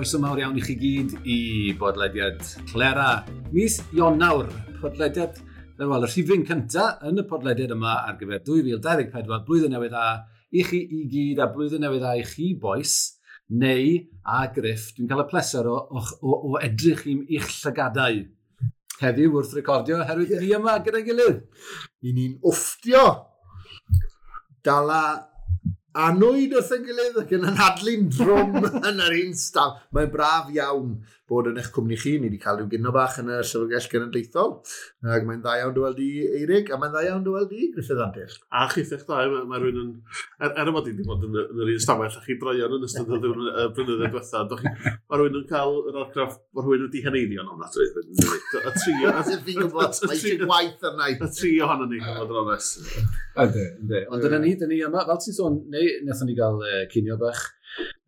Croeso mawr iawn i chi gyd i bodlediad Clera. Mis Ionawr, podlediad, wel, y rhifyn cyntaf yn y podlediad yma ar gyfer 2024, blwyddyn newydd dda i chi i gyd a blwyddyn newydd dda i chi, bois, neu a Griff. Dwi'n cael y pleser o edrych i'ch llygadau heddiw wrth recordio, oherwydd ni yma gyda'n gilydd. I ni'n wfftio dala anwyd wrth ein gilydd ac yn anadlu'n drwm yn yr un staf. Mae'n braf iawn bod yn eich cwmni chi. Ni wedi cael rhyw gino bach yn y Llyfrgell Genedlaethol. Ac mae'n dda iawn dy weld i, Eirig, a mae'n dda iawn dy weld i, Griffith Antur. A chithech da, mae rhywun yn... Er y bod i wedi bod yn yr un stafell a chi droion yn ystod y blynyddoedd diwetha, mae rhywun yn cael yr argraff bod rhywun wedi heneiddio yn ofnadwy. Y tri... Fi'n gwybod, mae eisiau gwaith arna i. Y tri ohonon ni, fod yn onest. Yndi, yndi. Ond dyna ni, dyna ni yma, fel ti'n sôn, neu wnaethon ni gael cinio bach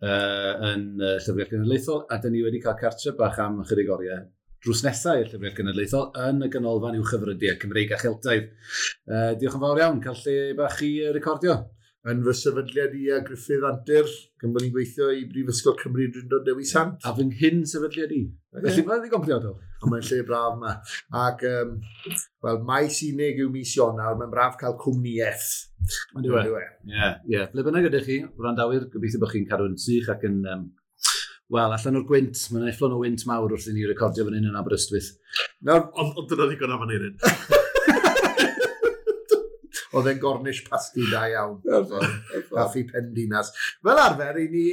yn Llyfrgell Genedlaethol, a dyn ni wedi cael cartre bach am ychydig oriau drws nesaf i'r Llyfrgell Genedlaethol yn y Ganolfan Uwchyfrydiau Cymreig a Cheltaidd. Diolch yn fawr iawn, cael lle bach i recordio. Yn fy sefydliad i a Griffith Antur, gan bod ni'n gweithio i Brifysgol Cymru Drindod Dewi Sant. A fy nghyn sefydliad i. Felly mae'n ddigon priodol. Ond mae'n lle braf yma. Ac, wel, maes unig yw mis Ionawr, mae'n braf cael cwmnïaeth. Ond yw e? Ie, ie. Ble bynnag ydych chi, wrandawyr, gobeithio bod chi'n cadw'n sych ac yn, wel, allan o'r gwynt. Mae'n efflon o wynt mawr wrth i ni recordio fan hyn yn Aberystwyth. Nawr, Ond dyna ddigon am Aneurin. Oedd e'n gornish pasty da iawn. Caffi Pendinas. Fel arfer, i ni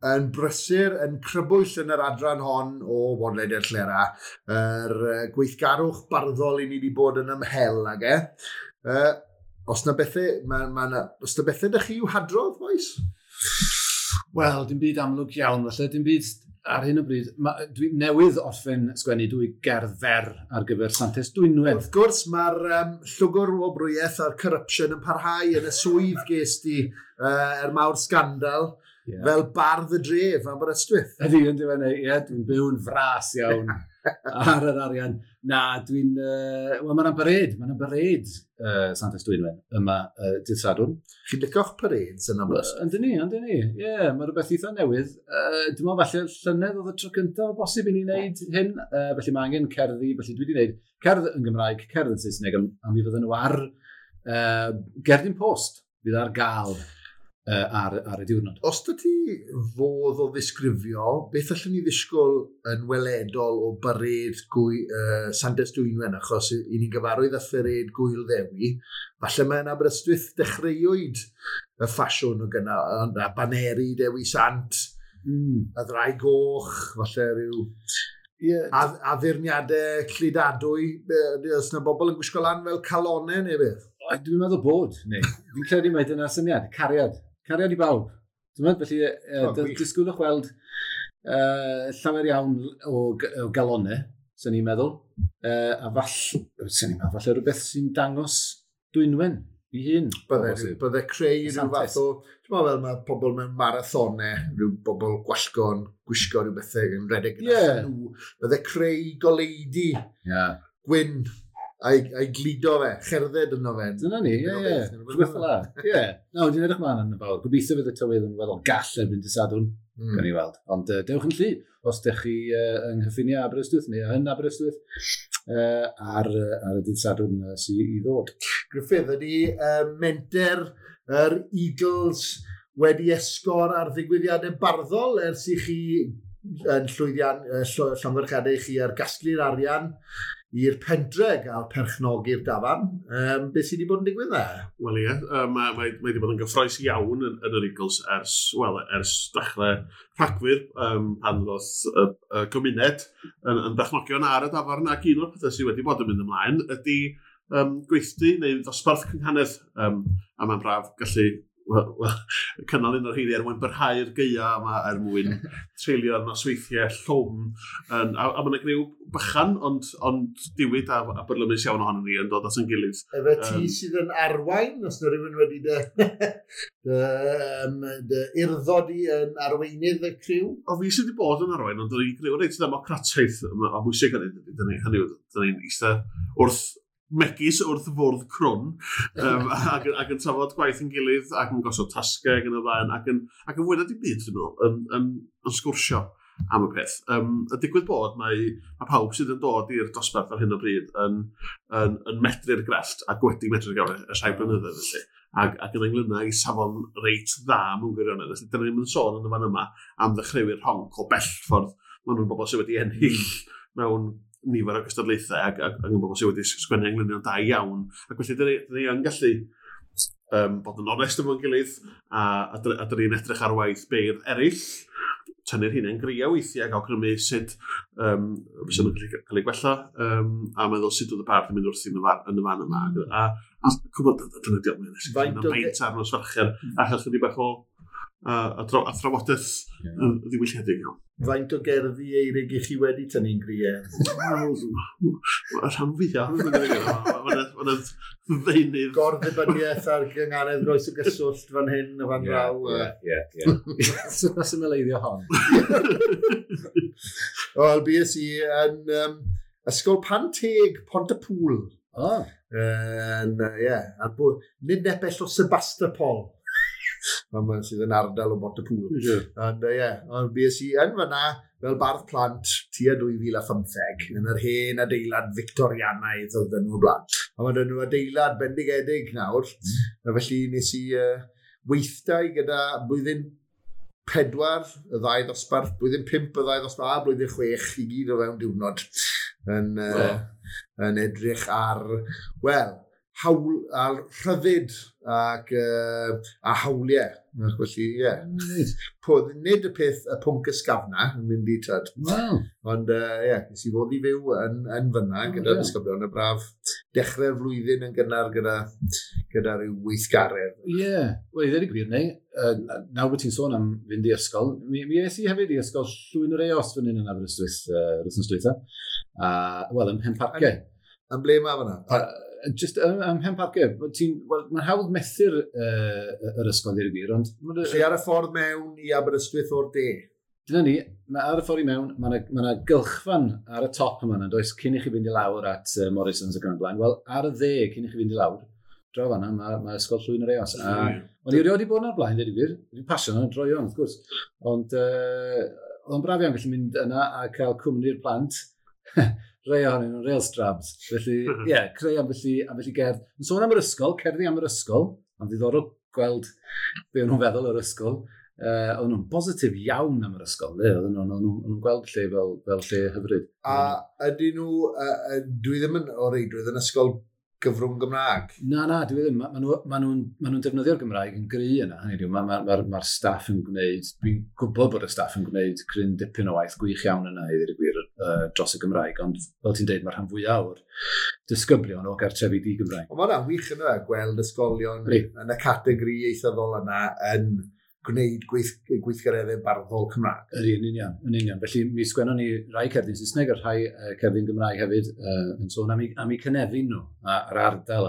yn brysur, yn crybwyll yn yr adran hon o Bodlediad Llera, yr gweithgarwch barddol i ni wedi bod yn ymhel ag e. Os na bethau, os na bethau dych chi i'w hadrodd, boys? Wel, dim byd amlwg iawn, falle, dim byd ar hyn o bryd. Dwi newydd orffen sgwennu dwy gerdd fer ar gyfer Santes Dwynwen. Wrth gwrs, mae'r llwgr wobrwyaeth a'r corruption yn parhau yn y swydd ges di er mawr sgandal, fel bardd y dref Aberystwyth. Ydy, yn diwedd, ie, dwi'n byw'n fras iawn ar yr arian. Na, dwi'n... Wel, mae'n parade, mae'n parade Santes Dwynwen yma dydd Sadwrn. Chi'n licio'ch parades yn Aberystwyth? Yndyn ni, yndyn ni. Ie, mae rhywbeth eitha newydd. Dwi'n meddwl falle llynedd oedd y tro cyntaf o bosib i ni wneud hyn. Felly mae angen cerddi, felly dwi wedi wneud cerdd yn Gymraeg, cerdd yn Saesneg, a mi fydden nhw ar gerdyn post fydd ar gael ar y diwrnod. Os dy ti fodd o ddisgrifio, beth allwn ni ddisgwyl yn weledol o bared Santes Dwynwen, achos i ni'n gyfarwydd â phared Gwyl Ddewi, falle mae yn Aberystwyth dechreuwyd y ffasiwn o gyna, a baneri Dewi Sant, y ddraig goch, falle rhyw addurniadau cludadwy, os yna bobl yn gwisgo lan fel calonau neu beth? O, dwi'n meddwl bod, neu. Fi'n credu mai dyna'r syniad, cariad. Cariad i bawb. Dwi'n meddwl, felly, O, gwych. disgwylwch weld llawer iawn o galonau, sy'n ni'n meddwl. A sy'n ni'n meddwl, falle rhywbeth sy'n dangos Dwynwen i hun. Bydde O bosib. creu rhyw Santes. fath o, ti'n meddwl fel mae pobl mewn marathonau, rhyw bobl gwallgo'n gwisgo rhyw bethau yn rhedeg gyda nhw. Bydde creu goleudi gwyn a'i gludo fe, cherdded yno fe. Dyna ni, ie, Dyna ie. beth, dyna beth. Rhywbeth fel 'na. Ie. Na, dwi'n edrych mlaen yn fawr. Gobeithio fydd y tywydd yn weddol gall erbyn dydd Sadwrn. Gawn ni weld. Ond dewch yn llu, os ydych chi yng nghyffiniau Aberystwyth neu yn Aberystwyth ar y dydd Sadwrn sydd i ddod. Griffith, ydy menter yr Eagles wedi esgor ar ddigwyddiadau barddol ers i chi yn llwyddiant llongyfarchiadau i chi ar gasglu'r arian i'r pentre gael perchnogi'r dafarn. Beth sydd wedi bod yn digwydd na? Wel ie, mae wedi bod yn gyffrous iawn yn yr Eagles ers dechrau Rhagfyr, pan ddoth y gymuned yn berchnogion ar y dafarn, ac un o'r pethau sydd wedi bod yn mynd ymlaen ydy gweithdy neu ddosbarth cynghanedd, a mae'n braf gallu cynnal un o'r rheini er mwyn byrhau'r gaea yma, er mwyn treulio'r nosweithiau llwm. A ma' 'na griw bychan, ond diwyd a byrlymus iawn ohonon ni yn dod at ein gilydd. Efe ti sydd yn arwain, os na rhywun wedi dy urddo di yn arweinydd y criw? O, fi sydd wedi bod yn arwain, ond dyn ni'n griw reit ddemocrataidd o bwysig hynny, dyn ni, hynny yw, dyn ni'n eistedd wrth Megis wrth fwrdd crwn, ac yn trafod gwaith yn gilydd, ac yn gosod tasgau ac yn y blaen, ac yn fwy na dim byd, dwi'n meddwl, yn sgwrsio am y peth. Y digwydd bod, mae pawb sydd yn dod i'r dosbarth ar hyn o bryd yn medru'r grefft ac wedi medru'r grefft ers rhai blynyddoedd felly. Ac yn englyna i safon reit dda mewn gwirionedd. Felly, dyna ni'n sôn yn y fan yma am ddechreuwyr rhonc o bell ffordd. Maen nhw'n bobl sydd wedi ennill mewn nifer o gystadlaethau ac yn bobl sydd wedi sgwennu englynion da iawn. Ac felly, dyna ni yn gallu bod yn onest efo'n gilydd a dyna ni'n edrych ar waith beirdd eraill, tynnu'r hunain gria weithiau ac awgrymu sut fysa nhw'n gallu cael ei gwella a meddwl sut oedd y bardd yn mynd wrthi yn y fan yma. A cwbl, dyna diolch, mae'n Faint o beint ar nos Fercher a chael chydig bach o a thrafodaeth ddiwylliedig iawn. Faint o gerddi Eirig i chi wedi tynnu'n griau? Wel, y rhan fwyaf, mae'n ddeunydd. Gorddibyniaeth ar gyngaredd groes o gyswllt fan hyn a fan draw. Ie, ie. Sut mae symleiddio hon? Wel, bues i yn Ysgol Panteg, Pont-y-pŵl. O. Yn, ie, nid nepell o Sebastopol. Mae'n sydd yn ardal o Bont-y-pŵl. Ond ie, ond bues i yn fyna fel bardd plant tua 2015 yn yr hen adeilad Victorianaidd oedd yn nhw blaen. A mae nhw adeilad bendigedig nawr. A felly nes i weithdai gyda blwyddyn 4 y ddau ddosbarth, blwyddyn 5 y ddau ddosbarth a blwyddyn 6 i gyd o fewn diwrnod yn edrych ar, wel, hawl, ar rhyddid ac a hawliau. Ac felly, ie. Nid y peth, y pwnc ysgafna yn mynd i tyd. Wow. Ond, ie, nes i fod i fyw yn fyna gyda disgyblion y braf dechrau'r flwyddyn yn gynnar gyda rhyw weithgaredd. Ie, wel, i ddweud y gwir, neu, nawr bod ti'n sôn am fynd i ysgol, mi es i hefyd i ysgol Llwyn yr Eos fan hyn yn Aberystwyth, yr wythnos dwytha. Wel, ym Mhenparcau. Yn ble mae fyna? Just ym Mhenparcau. Wel, mae'n hawdd methu'r yr ysgol i'r gwir, ond Lle ar y ffordd mewn i Aberystwyth o'r de? Dyna ni, mae ar y ffordd i mewn, mae yna gylchfan ar y top yma, yn does, cyn i chi fynd i lawr at Morrison's ac yn y blaen. Wel, ar y dde, cyn i chi fynd i lawr, draw fan'na, mae ysgol Llwyn yr Eos. A o'n i erioed wedi bod yna'r blaen, dweud i gwir. Dwi'n pasio yna, droion, wrth gwrs. Ond oedd o'n braf iawn gallu mynd yna a cael cwmni'r plant. Rhai ohonyn nhw'n real strabs. Felly, ie, creu ambell i gerdd. Yn sôn am yr ysgol, cerddi am yr ysgol, ond ddiddorol gweld be o'n nhw'n feddwl o'r ysgol. Oedden nhw'n bositif iawn am yr ysgol, le. Oedden nhw'n gweld lle fel lle hyfryd. A ydyn nhw, dwi ddim yn o reidrwydd yn ysgol gyfrwng Gymraeg? Na, dwi ddim. Ma nhw'n defnyddio'r Gymraeg yn gry yna. Hynny yw, mae'r staff yn gwneud, dwi'n gwybod bod y staff yn gwneud cryn dipyn o waith gwych iawn yna i ddweud y gwir dros y Gymraeg, ond fel ti'n deud, mae'r rhan fwyaf o'r disgyblion o gartrefi di-Gymraeg. Ond mae hwnna'n wych yna, gweld ysgolion yn y categori ieithyddol yna yn gwneud gweithgareddau barddol Cymraeg. Ydy, yn union, yn union. Felly mi sgwennon ni rai cerdyn Saesneg a rhai cerdyn Gymraeg hefyd yn sôn am eu cynefin nhw a'r ardal.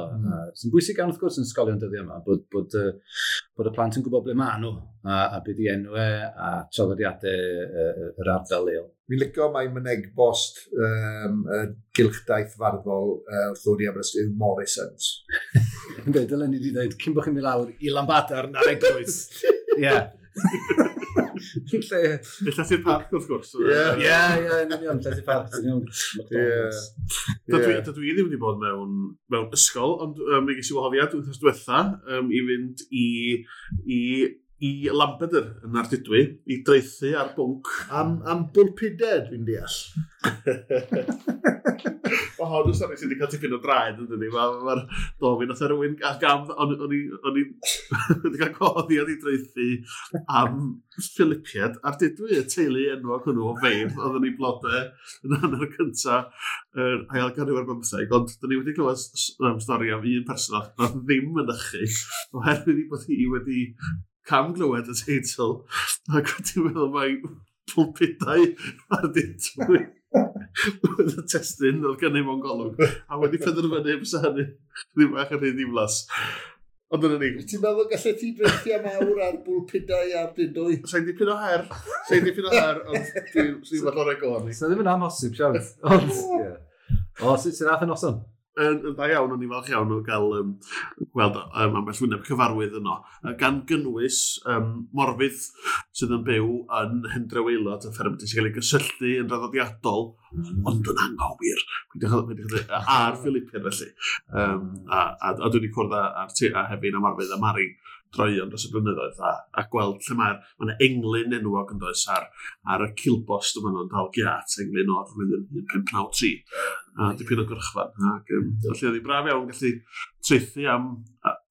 Sy'n bwysig iawn wrth gwrs yn ysgolion dyddiau yma, bod y plant yn gwybod ble maen nhw a be di enwau a traddodiadau yr ardal leol. Fi'n licio mai mynegbost y gylchdaith farddol wrth ddod i Aberystwyth yw Morrison's. Ynddi, dylen ni wedi dweud, cyn bod chi'n mynd lawr i Lambadar na'r eglwys. Ie. Lle Llethu'r parc, wrth gwrs. Ie. Ie, ie, yn union, Llethu'r parc, yn union. Ie. Dydw i ddim wedi bod mewn ysgol, ond mi ges i wahoddiad wythnos diwetha i fynd i Lampeter yn Ardudwy, i draethu ar bwnc. Am bwlpidau, dwi'n deall. Mae hon yn stori sydd wedi cael tipyn o draed, yn dydi? Mae'r do, fi nath rhywun gam, o'n i wedi cael gwahoddiad i draethu am Philipiad Ardudwy, y teulu enwog hwnnw o feirdd, oedd yn ei blodau yn hanner cynta yr ail ganrif ar bymtheg, ond dyn ni wedi clywed stori am un person nath ddim mynychu, oherwydd ei bod hi wedi camglywed y teitl, ac wedi meddwl mai pwlpidau Ardudwy oedd y testun oedd gennym mewn golwg, a wedi penderfynu fysa hynny ddim bach yn rhy ddiflas. Ond dyna ni. Ti'n meddwl gallet ti draethu am awr ar bwlpidau Ardudwy? Sa'n dipyn o her, sa'n dipyn o her, ond dwi'n fath o'r go arni. So ddim yn amhosib, siawns. Ond, ie. O, sut sy'n nath y noson? Yn dda iawn, o'n i'n falch iawn o gael gweld ambell wyneb cyfarwydd yno. Gan gynnwys Morfydd sydd yn byw yn Hendre Waelod, y fferm sy'n cael ei gysylltu yn draddodiadol, ond yn anghywir. A'r Philippian felly. A dwi wedi cwrdd â Hefin a Morfydd a Mari droeon dros y blynyddoedd a gweld lle mae yna englyn enwog yn does ar y cilbost yma nhw'n dal giat, englyn o'r flwyddyn 1593, a dipyn o gyrchfan. Ac, felly oedd hi'n braf iawn gallu traethu am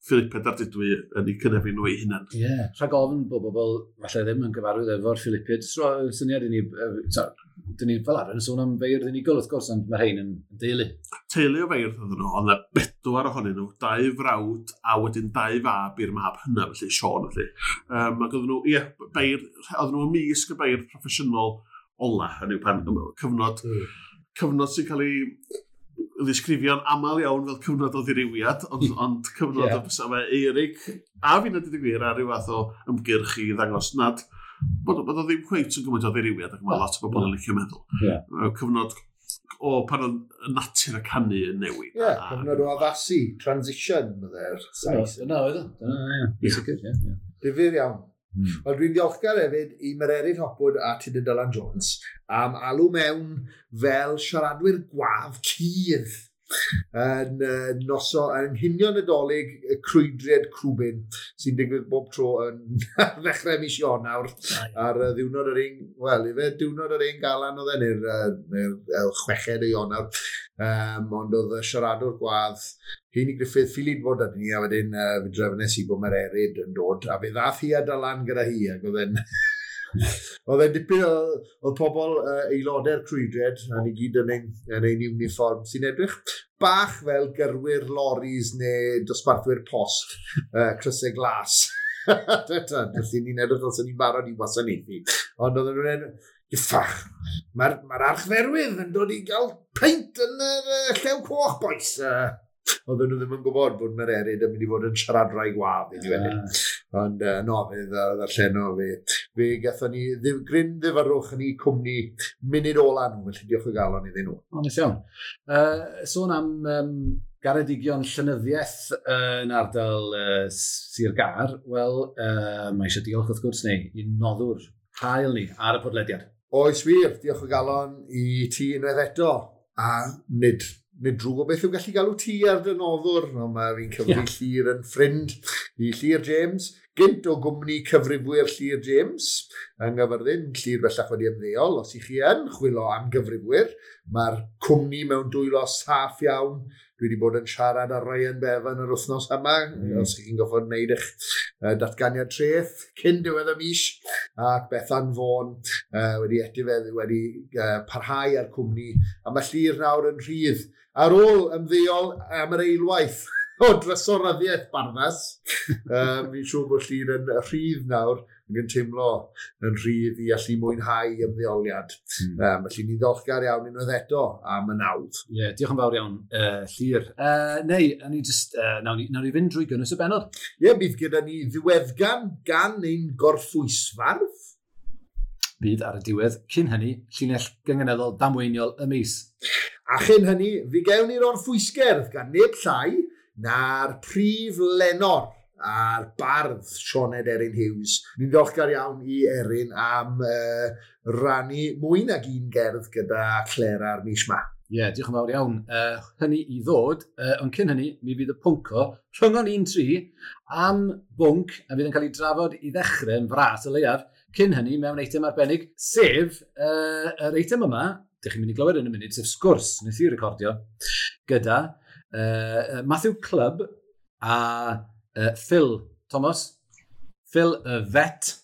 Philippid Ardudwy yn eu cynefin nhw eu hunain. Ie, yeah. Rhag ofn bod bobl falle ddim yn gyfarwydd efo'r Philippiad. Syniad i ni, dyn ni fel arfer yn sôn am feirdd unigol wrth gwrs, ond mae rhain yn deulu. Teulu o feirdd oedden nhw, ond bedwar ohonyn nhw, dau frawd a wedyn dau fab i'r mab hynna, felly Sean felly. Ac oedden nhw, ie, beirdd, oedden nhw ymysg y beirdd proffesiynol ola, hynny yw pan cyfnod, cyfnod sy'n cael ei ddisgrifio'n aml iawn fel cyfnod o ddirywiad, ond cyfnod o fysa fe Eirig, a fi'n dweud y gwir ar ryw fath o ymgyrch i ddangos nad bod o ddim cweit yn gymaint o ddirywiad ac mae lot o bobl yn licio meddwl. Yeah. Cyfnod o pan oedd natur y canu yn newid. Ie, yeah, cyfnod o addasu, transition, bydde'r Sais. Dyna oedd o. Dyna, ie. Sicr, ie. Difyr iawn. Wel, dwi'n ddiolchgar hefyd i Mererid Hopwood a Tudur Dylan Jones am alw mewn fel siaradwyr gwadd cudd yn noso yng nghinio Nadolig y crwydriad Crwbin sy'n digwydd bob tro yn ddechrau mis Ionawr ar ddiwrnod yr un, wel, ife diwrnod yr un galan oedd e, neu'r 6 o Ionawr, ond oedd y siaradwr gwadd Heini Griffith ffili bod â ni, a wedyn fe drefnes i bod Mererid yn dod, a fe ddath hi a Dylan gyda hi, ac oedd e'n oedd e'n dipyn o, oedd pobl aelodau'r crwydriad, a ni gyd yn ein uniform sy'n edrych bach fel gyrwyr loris neu dosbarthwyr post, crysau glas. Felly ni'n edrych fel sy'n ni'n barod i wasanaethu. Ond oedden nhw'n Iffach, mae'r archferwydd yn dod i gael peint yn y Llew Coch, boys. Oedden nhw ddim yn gwybod bod Mererid yn mynd i fod yn siaradwraig wadd i wedyn. Ond no, fe ddarlleno fe gathon ni gryn ddifyrrwch yn eu cwmni munud ola nhw, felly diolch o galon iddyn nhw. O, neis iawn. Sôn am garedigion llenyddiaeth yn ardal Sir Gâr, wel, mae eisiau diolch wrth gwrs neu i noddwr hael ni ar y podlediad. Oes wir, diolch o galon i ti unwaith eto, a nid drwg o beth yw gallu galw ti ar dy noddwr, ond mae fi'n cyfri Llyr yn ffrind i Llyr James, gynt o gwmni cyfrifwyr Llyr James yng Nghaerfyrddin. Llyr bellach wedi ymddeol, os ych chi yn chwilio am gyfrifwyr, mae'r cwmni mewn dwylo saff iawn. Dwi wedi bod yn siarad â Ryan Bevan yr wythnos yma, os chi'n goffod wneud eich datganiad treth cyn diwedd y mis, ac Bethan Vaughan wedi etifedd, wedi parhau â'r cwmni, a mae Llyr nawr yn rhydd ar ôl ymddeol am yr eilwaith o drysoryddiaeth Barddas. Fi'n siŵr bod Llyr yn rhydd nawr, ac yn teimlo yn rhydd i allu mwynhau ymddeoliad. Felly ni'n ddiolchgar iawn unwaith eto am y nawdd. Ie, yeah, diolch yn fawr iawn, Llyr. Neu, ni just, nawn ni fynd drwy gynnwys y bennod. Ie, yeah, bydd gyda ni ddiweddgan gan ein gorffwysfardd. Bydd ar y diwedd, cyn hynny, llinell gynganeddol damweiniol y mis. A chyn hynny, fi gewn ni'r orffwysgerdd gan neb llai na'r prif lenor a'r bardd Sioned Erin Hughes. Ni'n ddiolchgar iawn i Erin am rannu mwy nag un gerdd gyda Clera ar mis ma. Ie, yeah, diolch yn fawr iawn. Hynny i ddod, ond cyn hynny, mi fydd y pwnco rhyngon 1-3 am bwnc a fydd yn cael ei drafod i ddechrau yn fras y leiaf, cyn hynny mewn eitem arbennig, sef yr eitem yma, dych chi'n mynd i glywed yn y munud, sef sgwrs, nes i recordio, gyda Matthew Clubb a Phil Thomas, Phil y Vet.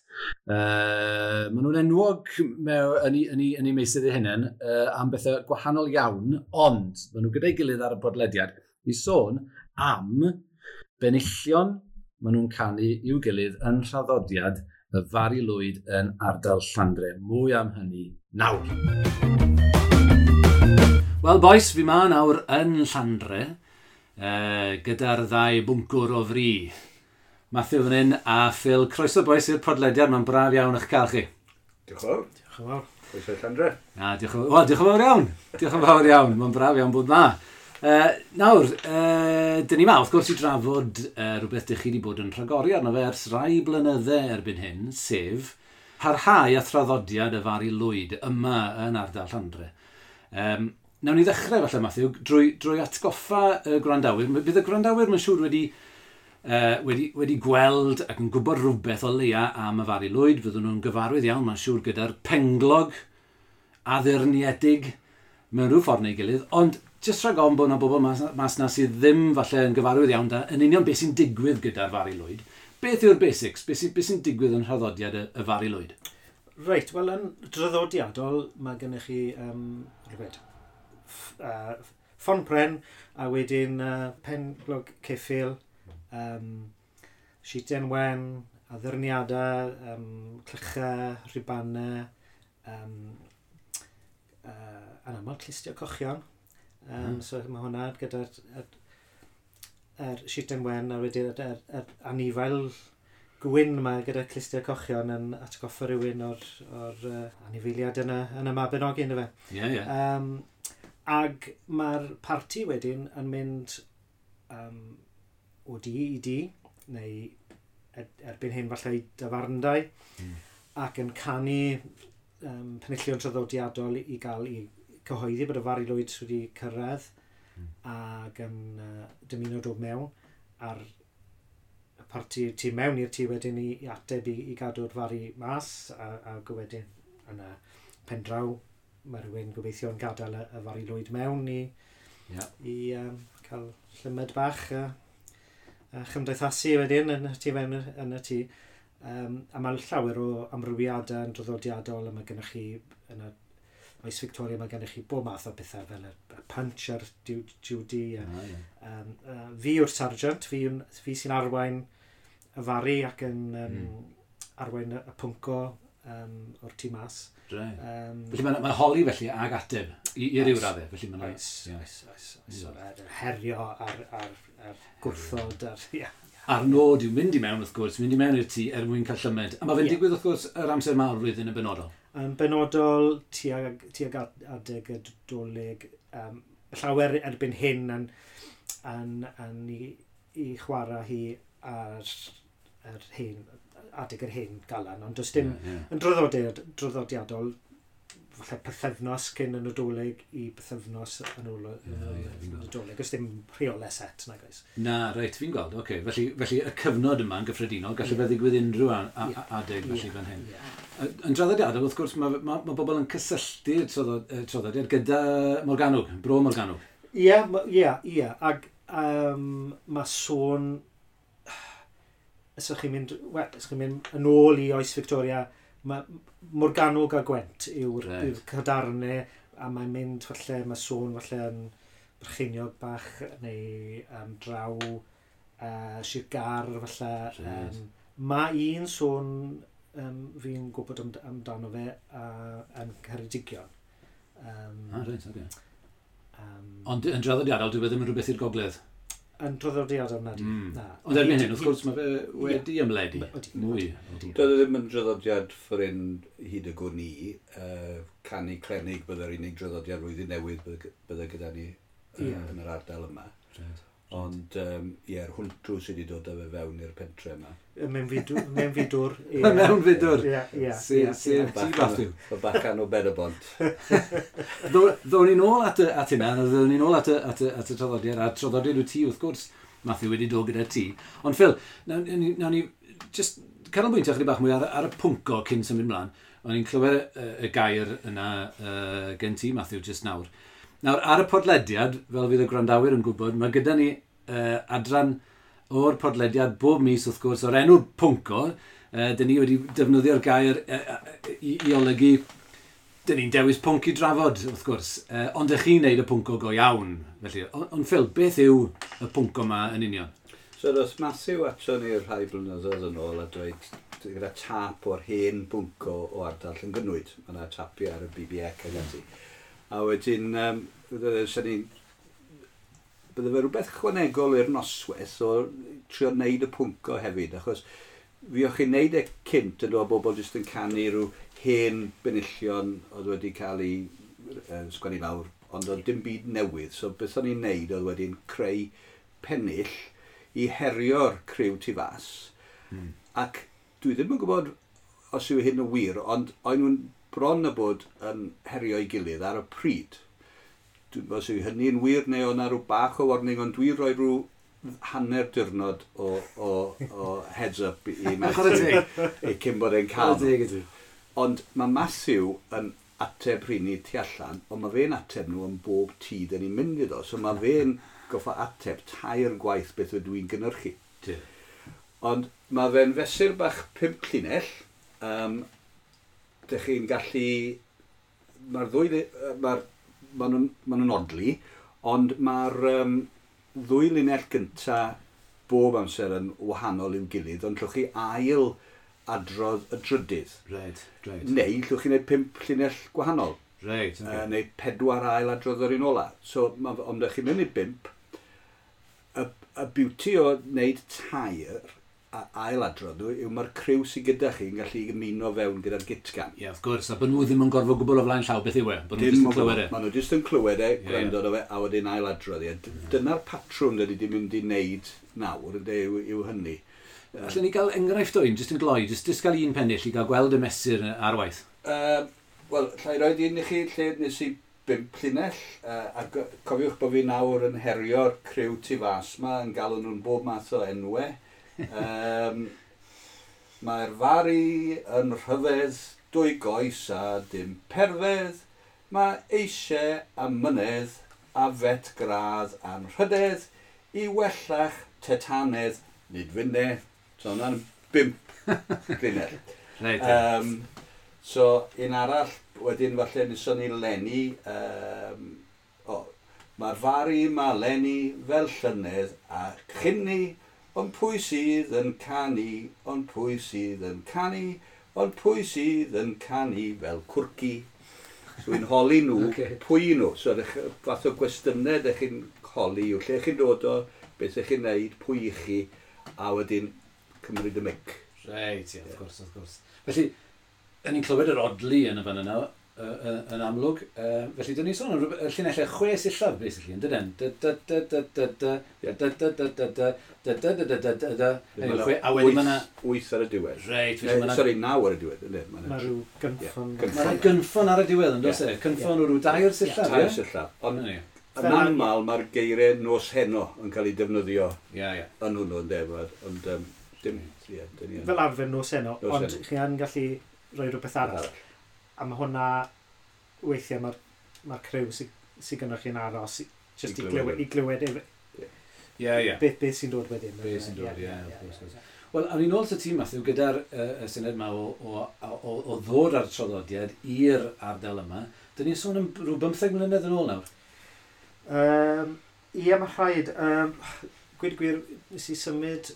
Maen nhw'n enwog yn eu meysydd eu hunain am bethau gwahanol iawn, ond maen nhw gyda'i gilydd ar y podlediad i sôn am benillion maen nhw'n canu i'w gilydd yn nhraddodiad y Fari Lwyd yn ardal Llandre. Mwy am hynny nawr. Wel, boys, fi ma nawr yn Llandre, gyda'r ddau bwncwr o fri. Matthew fan hyn a Phil. Croeso, boys, i'r podlediad. Mae'n braf iawn eich cael chi. Diolch yn fawr. Diolch yn fawr. Croeso i Llandre. Na, diolch yn fawr iawn. Diolch yn fawr iawn. Mae'n braf iawn bod na. Nawr, dyn ni ma, wrth gwrs, i drafod rhywbeth dych chi wedi bod yn rhagori arno fe ers rai blynydde erbyn hyn, sef parhau a thraddodiad y Fari Lwyd yma yn ardal Llandre. Nawn ni ddechrau falle, Matthew, drwy atgoffa y gwrandawyr. Bydd y gwrandawyr, mae'n siŵr, wedi gweld ac yn gwybod rhywbeth o leia am y Fari Lwyd. Fyddwn nhw'n gyfarwydd iawn, mae'n siŵr, gyda'r penglog addurniedig mewn rhyw ffordd neu gilydd. Ond jyst rhag ofn bod yna bobl mas na sydd ddim falle yn gyfarwydd iawn da, yn union beth sy'n digwydd gyda'r Fari Lwyd. Beth yw'r basics? Beth sy'n digwydd yn nhraddodiad y Fari Lwyd? Reit, wel, yn draddodiadol mae gennych chi rhywbeth, ffon pren a wedyn penglog ceffyl, sheeten wen, addurniadau, clychau, rhubanau, yn aml clustiau cochion. So mae hwnna gyda'r sheeten wen a wedyn yr anifail gwyn yma gyda clustiau cochion yn atgoffa rhywun o'r anifeiliad yn y Mabinogi, ynddo fe. Ie, ie. Ag mae'r parti wedyn yn mynd o dŷ i dŷ, neu erbyn hyn falle i dafarndai, ac yn canu penillion traddodiadol i gael i cyhoeddi bod y Fari Lwyd wedi cyrraedd ac yn dymuno dod mewn a'r y parti tu mewn i'r tŷ wedyn i ateb i gadw'r Fari mas a wedyn yn y pendraw mae rhywun gobeithio yn gadael y Fari Lwyd mewn i cael llymed bach a chymdeithasu wedyn yn y tŷ mewn yn y tŷ. A mae llawer o amrywiadau yn draddodiadol a mae gennych chi yn y oes Victoria mae gennych chi bob math o bethau fel y punch a'r Judy. Fi yw'r sergeant, fi sy'n arwain y Fari ac yn arwain y pwnco o'r tŷ mas. Felly mae'n holi felly ag ateb i ryw raddau. Felly mae'n Oes, oes, oes, oes. Herio a'r gwrthod. Ie. A'r nod yw mynd i mewn, wrth gwrs, mynd i mewn i'r tŷ er mwyn cael llymed. A mae fe'n digwydd, wrth gwrs, yr amser mawr flwyddyn yn benodol. Yn benodol tuag adeg y Dolig, llawer erbyn hyn yn i chwarae hi ar yr hen, adeg yr hen galan, ond does dim yn draddodiadol, falle pythefnos cyn y Nadolig i pythefnos yn ôl y Nadolig. Does dim rheolau set, nag oes. Na, reit, fi'n gweld, oce. Felly y cyfnod yma yn gyffredinol, gallu fe ddigwydd unrhyw adeg felly fan hyn. Yn draddodiadol, wrth gwrs, mae bobl yn cysylltu'r traddodiad gyda Morgannwg, Bro Morgannwg. Ie. Ac mae sôn, os ydych chi'n mynd, wel, os chi'n mynd yn ôl i oes Victoria, mae Morgannwg a Gwent yw'r cadarnau, a mae'n mynd falle, mae sôn falle yn Brycheiniog bach neu draw Sir Gâr falle. Mae un sôn fi'n gwybod amdano fe yn Ceredigion. Reit, oce. Ond yn draddodiadol, dwi ddim yn rhywbeth i'r gogledd? Yn draddodiadol, na di. Na. Ond erbyn hyn, wrth gwrs, mae fe wedi ymledu. Mwy. Doedd e ddim yn draddodiad ffordd hyn hyd y gwn i. Canu clenig byddai'r unig draddodiad flwyddyn newydd bydde gyda ni yn yr ardal yma. Ond ie'r hwntw sydd wedi dod â fe fewn i'r pentre yma. Mewnfudwr. Mewnfudwr. Ie. Sef ti, Matthew. Y bachan o Ben-y-bont. Ddown ni'n ôl at hynna, ddown ni'n ôl at y traddodiad, a'r traddodiad wyt ti, wrth gwrs, Matthew, wedi dod gyda ti. Ond Phil, nawn ni just canolbwyntio chydig bach mwy ar y pwnco cyn symud mlaen. O'n i'n clywed y gair yna gen ti, Matthew, just nawr. Nawr, ar y podlediad, fel fydd y gwrandawyr yn gwybod, mae gyda ni adran o'r podlediad bob mis, wrth gwrs, o'r enw pwnco. Dyn ni wedi defnyddio'r gair i olygu, dyn ni'n dewis pwnc i drafod, wrth gwrs. Ond ych chi'n neud y pwnco go iawn. Felly, ond Phil, beth yw y pwnco yma yn union? So, does Matthew ato ni rhai blynyddoedd yn ôl a dweud gyda tap o'r hen bwnco o ardal Llangynwyd. Mae yna tapiau ar y BBEC ac ati. A wedyn, bydde fe rhywbeth chwanegol i'r noswaith o trio wneud y pwnco hefyd, achos fi o'ch chi'n wneud e cynt yn dod bobl jyst yn canu rhyw hen benillion oedd wedi cael ei sgwennu lawr ond oedd dim byd newydd. So beth o'n i'n neud oedd wedyn creu pennill i herio'r criw tu fas. Ac dwi ddim yn gwybod os yw hyn yn wir, ond o'n nhw'n bron a bod yn herio'i gilydd ar y pryd. Dwi'n gwybod os yw hynny'n wir neu o'na rhyw bach o warning, ond dwi'n rhoi rhyw hanner diwrnod o heads up i Matthew i cyn bod e'n cael. Ond mae Matthew yn ateb rheini tu allan, ond mae fe'n ateb nhw yn bob tŷ dyn ni'n mynd iddo. So mae fe'n goffa ateb tair gwaith beth ydw i'n gynhyrchu. Ond mae fe'n fesur bach 5 llinell. Dych chi'n gallu... Mae'r ddwy... Ma nhw'n odli, ond mae'r ddwy linell gynta bob amser yn wahanol i'w gilydd, ond llwch chi ail adrodd y drydydd. Right. Neu llwch chi wneud 5 llinell gwahanol. Right, okay. Neu 4 ail adrodd yr un ola. So, ond ydych chi'n mynd i 5, y beauty o wneud 3 a ail adrodd nhw yw mae'r criw sydd gyda chi yn gallu ymuno fewn gyda'r gitgan. Ie, yeah, of course, a bod nhw ddim yn gorfod gwbl o flaen llaw beth yw e, bod nhw jyst yn clywed e. Maen nhw jyst yn clywed e, gwrando yeah. Fe, a wedyn ail adrodd e. Dyna'r patrwm dyn ni wedi mynd i wneud nawr, ynde, yw hynny. Allen ni gael enghraifft o un, jyst yn gloi, jyst gael un pennill i gael gweld y mesur ar waith? Wel, llai roed un i chi lle nes i 5 llinell, a cofiwch bod fi nawr yn herio'r criw tu fas ma, yn galw nhw'n bob math o enwau. Mae'r Fari yn rhyfedd, 2 goes a dim perfedd, mae eisiau a mynedd a fet gradd anrhydedd i wellach tetanedd nid fynne. So hwnna'n 5 linell. Reit. So un arall, wedyn falle neson ni Lenny, mae'r Fari ma Lenny fel llynedd a chynni, ond pwy sydd yn canu, ond pwy sydd yn canu, ond pwy sydd yn canu fel cwrci. So dwi'n holi nhw, okay. Pwy nhw. So fath o gwestiynau ydych chi'n holi yw lle chi'n dod o, beth ydych chi'n neud, pwy i chi, a wedyn cymryd y mic. Reit, ie, of course, of course. Felly, yn ni'n clywed yr odli yn y fan yna, yn amlwg. Felly, dyn ni'n sôn am llinellau 6 sillaf, basically, yn dydyn? Da da da da da da da da da da da da da da da da da. A wedyn mae 'na 8 ar y diwedd. Reit, felly mae 'na... Sori, 9 ar y diwedd, ynddo? Mae rhyw gynffon. Mae 'na gynffon ar y diwedd, yn does e? Cynffon o rhyw 3 sillaf, ie? 3 sillaf. Ond yn aml mae'r geiriau nos heno yn cael ei defnyddio yn hwnnw, ynddo? Ond dim... Fel arfer nos heno, ond chi yn gallu rhoi rhywbeth arall. A mae hwnna, weithiau mae'r criw sydd gynnwch chi'n aros, jyst i glywed beth sy'n dod wedyn. Beth sy'n dod, ie, of course. Wel, awn ni'n ôl at y tîm, Matthew, gyda'r syniad yma o ddod ar traddodiad i'r ardal yma. Dyn ni'n sôn am rhyw 15 mlynedd yn ôl nawr? Ie, mae rhaid. Gweud gwir, nes i symud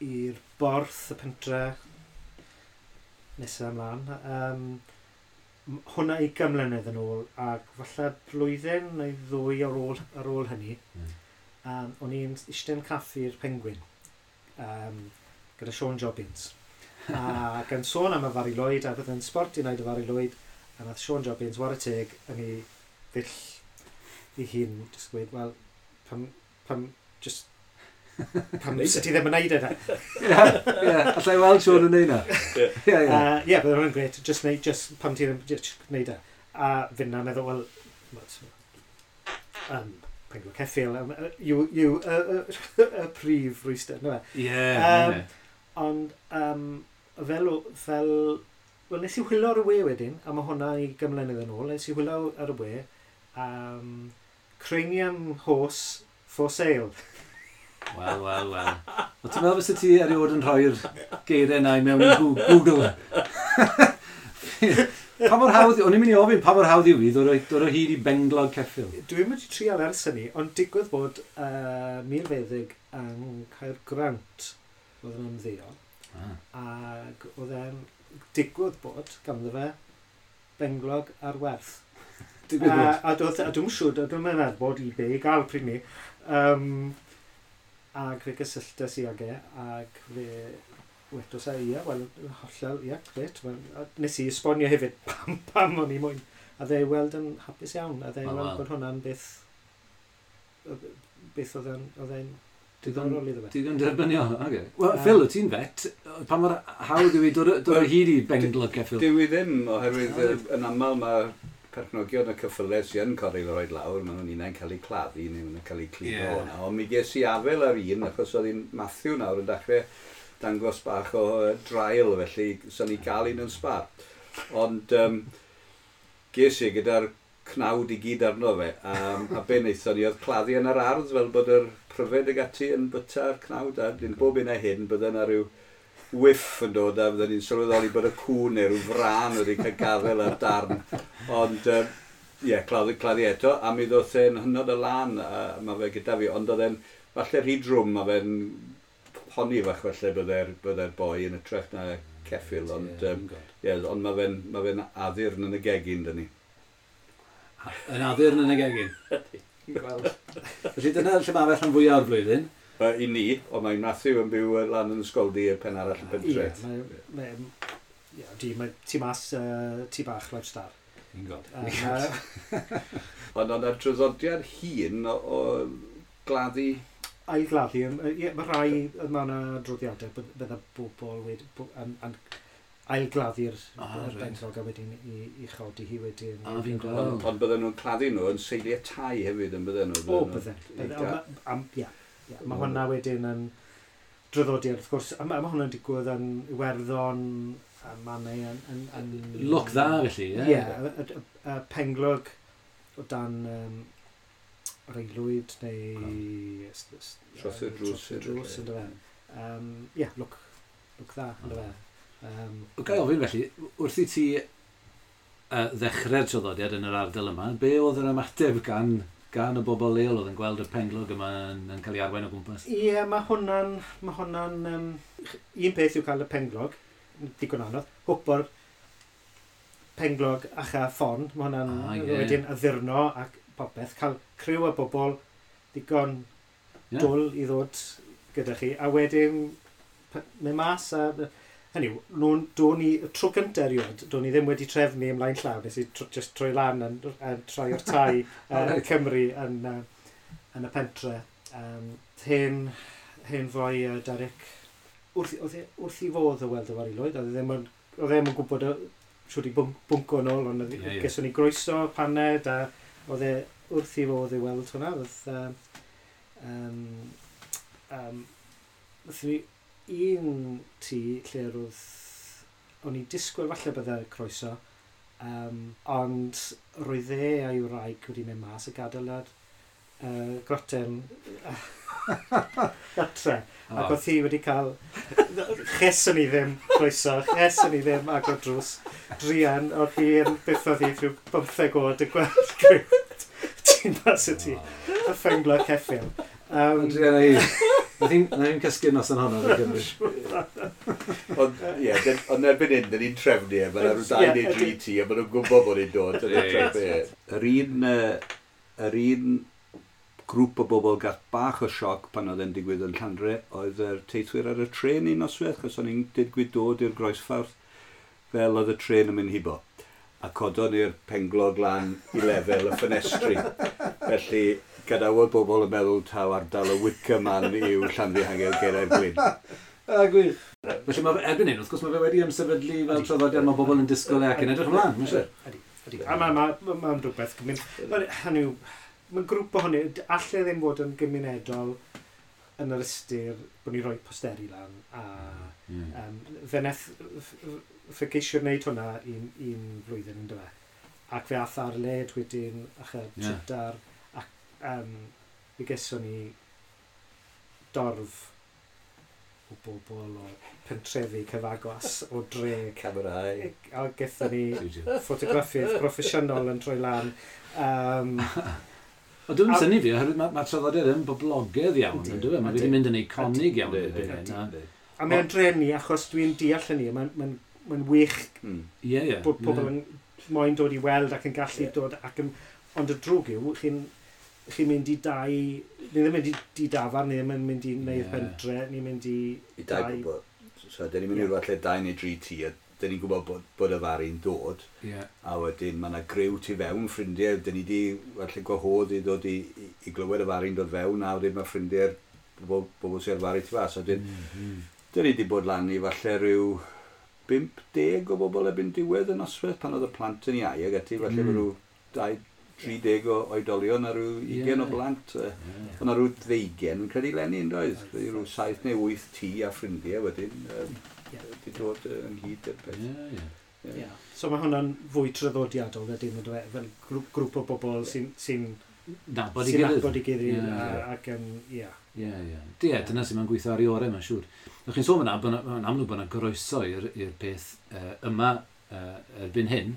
i'r Borth, y pentre, nesaf ymlaen. Hwnna 20 mlynedd yn ôl, ac falle blwyddyn neu ddwy ar ôl hynny, o'n i'n eistedd yn caffi'r Penguin gyda Sean Jobbins. Ac yn sôn am y Fari Lwyd, a bydd yn sbort i wneud y Fari Lwyd, a nath Sean Jobbins, ware teg, yn ei ddull ei hun, jyst gweud, wel, pam, just pam sut ti ddim yn neud e da. Ie, allai weld Sean yn neud na. Ie, bydd hwnna'n gret, just neud, just pam ti ddim, just neud e. A finna meddwl, wel, penglog ceffyl, yw y prif rwystr, na fe. Ie. Ond, fel, wel, nes i hwylo ar y we wedyn, a mae hwnna i gymlynedd yn ôl, nes i hwylo ar y we, Cranium Horse for Sale. Wel, wel, wel. O, ti'n meddwl fysa ti erioed yn rhoi'r geiriau yna i mewn i Google? Pa mor hawdd, o'n i'n mynd i ofyn pa mor hawdd yw i ddod o hyd i benglog ceffyl? Dwi'n mynd i trial ers hynny, ond digwydd bod milfeddyg yng Caergrawnt oedd yn ymddeol. Ac oedd e'n digwydd bod ganddo fe benglog ar werth. Digwydd bod? A dwi'n siŵr, dwi'n meddwl bod eBay i gael pryd ni. Ac fe gysylltes i ag e, ac fe wedos e, ie, wel, hollol, ie, gret. Nes i esbonio hefyd pam o'n i moyn A dde i weld yn hapus iawn, a dde i weld bod hwnna'n beth oedd e'n diddorol iddo fe. Digon derbyniol, oce. Wel, Phil, wyt ti'n vet, pa mor hawdd yw i dod o hyd i benglog ceffyl? Dyw i ddim, oherwydd yn aml mae perchnogion y ceffylau sy'n yn cael ei roed lawr, maen nhw'n unai'n cael eu claddu neu maen nhw'n cael eu cludo o'na. Ond mi ges i afel ar un, achos oedd hi'n Matthew nawr yn dechrau dangos bach o drail, felly sa'n ni gael un yn sbar. Ond ges i gyda'r cnawd i gyd arno fe, a be wnaethon ni oedd claddu yn yr ardd fel bod yr pryfed ag ati yn byta'r cnawd, a dyn bob un a hyn bydde yna rhyw whiff yn dod a fydden ni'n sylweddoli bod y cŵn neu rhyw frân wedi cael gafael ar darn. Ond ie, claddu eto, a mi ddoth e'n hynod o lan, a mae fe gyda fi, ond oedd e'n falle rhy drwm, mae fe'n poni fach falle bydde'r boi yn ytrach na ceffyl, ond, ond mae fe'n addurn yn y gegin, dyn ni. Yn addurn yn y gegin? Felly dyna lle mae fe rhan fwyaf o'r flwyddyn? I ni, ond mae Matthew yn byw lan yn Ysgoldy y pen arall y pentre. Ie, mae ti mas tŷ bach Life Star. Fi'n gweld. Ond oedd traddodiad hŷn o gladdu? Ailgladdu, ie, mae rhai, mae yna adroddiadau bydda bobl wedi ailgladdu'r benglog a wedyn i chodi hi wedyn. A fi'n gweld. Ond bydden nhw'n claddu nhw yn seiliau tai hefyd yn bydden nhw? O, bydden. Ie. Mae hwnna wedyn yn draddodiad, wrth gwrs, a mae hwnna'n digwydd yn Iwerddon, a mannau yn Lwc dda, felly, ie? Ie, y penglog o dan yr aelwyd neu Dros y drws. Drws, ynddo fe. Ie, lwc dda, ynddo fe. Ga i ofyn felly, wrth i ti ddechrau'r traddodiad yn yr ardal yma, be oedd yr ymateb gan y bobl leol oedd yn gweld y penglog yma yn cael ei arwain o gwmpas? Ie, mae hwnna'n... un peth yw cael y penglog, digon anodd, hwpo'r penglog a cha ffon, mae hwnna'n wedyn addurno ac popeth, cael criw o bobl digon dwl i ddod gyda chi, a wedyn mynd mas a... Hynny yw, do'n i, tro gyntaf erioed, do'n i ddim wedi trefnu ymlaen llaw, nes i just troi lan yn troi o'r tai Cymru yn y pentre. Hen foi Derek, wrth i fodd o weld y Aelwyd, oedd e ddim yn gwybod siwr i bwnco yn ôl, ond geson ni groeso, paned, a oedd e wrth i fodd i weld hwnna. Oedd ni un tŷ lle roedd, o'n i disgwyl falle bydde croeso, ond roedd e a'i wraig wedi mynd mas a gadael yr groten gatre. Ac oedd hi wedi cael, cheson ni ddim croeso, cheson ni ddim agor drws. Druan, oedd hi yn byth oedd hi rhyw 15 oed yn gweld criw ti'n mas y tŷ, a phenglog ceffyl. Druan hi. Nath hi'n cysgu nos yn honno, fi'n cymryd. Ond, ie, ond erbyn hyn, dyn ni'n trefnu e, mae'n rhyw 2 neu 3 tŷ, a maen nhw'n gwybod bod ni'n dod. Yr un grŵp o bobl gath bach o sioc pan oedd e'n digwydd yn Llandre, oedd yr teithwyr ar y trên un noswaith, achos o'n i'n digwydd dod i'r groesffordd fel oedd y trên yn mynd hibo. A codon ni'r penglog lan i lefel y ffenestri. Felly, gadawodd bobl yn meddwl taw ardal y Wicker Man yw Llanfihangel Gerau'r Glyn. A gwych. Felly mae erbyn hyn, wrth gwrs, mae fe wedi ymsefydlu fel traddodiad, mae bobl yn disgwyl e ac yn edrych ymlaen, mae'n siŵr. Ydy. A mae'n rhywbeth. Hynny yw, mae'n grŵp ohoni, alle ddim fod yn gymunedol yn yr ystyr bod ni'n rhoi posteri lan. A fe wnaeth, fe geisio wneud hwnna un flwyddyn yn dyfe. Ac fe ath ar led wedyn, ac y trydar, ac fe geson ni dorf o bobl o pentrefi cyfagos o dre. Camerau. A gethon ni ffotograffydd proffesiynol yn troi lan. Ond dwi'n synnu fi, oherwydd mae'r traddodiad yn boblogaidd iawn, yn dyw e? Mae wedi mynd yn eiconig iawn. A mae'n drenu, achos dwi'n deall hynny, mae'n wych bod pobl yn moyn dod i weld ac yn gallu dod. Ond y drwg yw, chi'n mynd i dau, ni ddim mynd i dafarn, ni ddim yn mynd i neu'r pentre, ni'n mynd i dau bobl. So, dyn ni'n mynd i rywle lle 2 neu 3 tŷ a dyn ni'n gwybod bod y Fari'n dod. Yeah. A wedyn mae yna griw tu fewn ffrindiau, dyn ni wedi falle gwahodd i ddod i glywed y Fari'n dod fewn, a wedyn mae ffrindiau'r bobl sy'n Fari tu fas. A wedyn, dyn ni wedi bod lan i falle rhyw 50 o bobl erbyn diwedd y noswaith pan oedd y plant yn iau ac ati, falle rhyw 30 o oedolion a rhyw 20 o blant. Oedd yna rhyw 20, yn credu leni, yn doedd? Rhyw 7 neu 8 tŷ a ffrindiau wedyn wedi dod ynghyd i'r peth. Yeah. So mae hwnna'n fwy traddodiadol wedyn, yndyw e? Fel grŵp o bobl sy'n nabod i gilydd. Nabod i gilydd ac yn, ie. Ie. Ie, dyna sy'n mae'n gweithio ar ei orau, mae'n siŵr. O'ch chi'n sôn yna, mae'n amlwg bod yna groeso i'r peth yma erbyn hyn.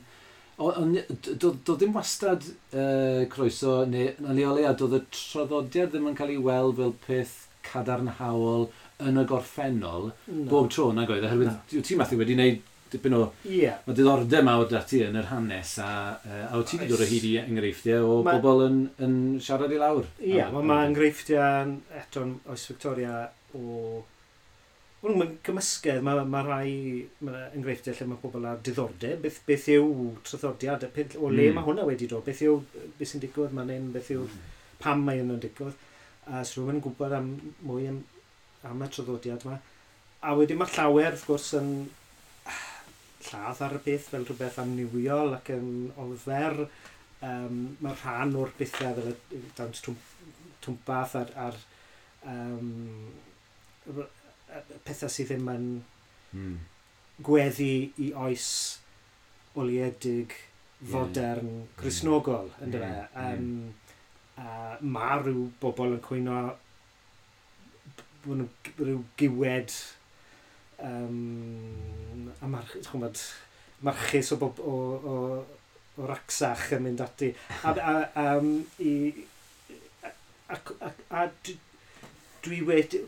Ond doedd ddim wastad croeso, neu yn o leia, doedd y traddodiad ddim yn cael ei weld fel peth cadarnhaol yn y gorffennol bob tro nag oedd, oherwydd ti Matthew wedi gwneud dipyn o mae diddordeb mawr 'da ti yn yr hanes a wyt ti wedi dod o hyd i enghreifftiau o bobl yn siarad i lawr. Ie, mae enghreifftiau eto'n oes Victoria o... Mae'n gymysgedd, mae rhai enghreifftiau lle mae pobl ar diddordeb, beth yw traddodiad, o le mae hwnna wedi dod, beth yw, beth sy'n digwydd man hyn, beth yw, pam mae hyn yn digwydd. A so rhywun yn gwybod am mwy am y traddodiad yma. A wedyn mae llawer, wrth gwrs, yn lladd ar y peth fel rhywbeth amniwiol ac yn ofer. Mae rhan o'r bethau fel y dawns twmpath a'r pethau sydd ddim yn gweddu i oes oliedig, fodern, Cristnogol, yndyfe. A mae rhyw bobl yn cwyno bod nhw rhyw giwed a marchus o racsach yn mynd ati. A dwi wedi...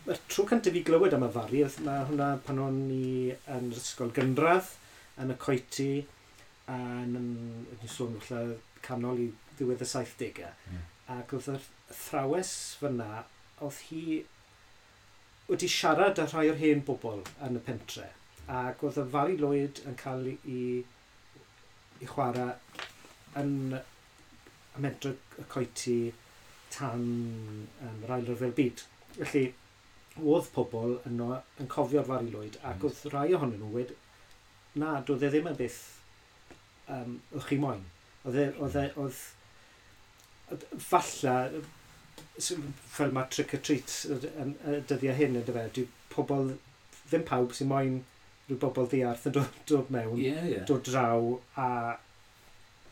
Mae'r tro cyntaf i glywed am y Fari, mae hwnna pan o'n i yn yr ysgol gynradd, yn y coety, a yn sôn falle canol i ddiwedd y 70au. Ac oedd yr athrawes fyna, oedd hi wedi siarad â rhai o'r hen bobl yn y pentre. Ac oedd y Fari Lwyd yn cael ei chwarae yn y mentre y coety tan yr Ail Ryfel Byd. Felly, oedd pobl yno yn cofio'r Fari Lwyd, ac oedd rhai ohonyn nhw wedi, na, doedd e ddim yn beth o'ch chi moyn. Oedd falle, fel mae trick or treat yn y dyddiau hyn, yndyfe, dyw pobl, ddim pawb sy'n moyn rhyw bobl ddiarth yn dod mewn, dod draw a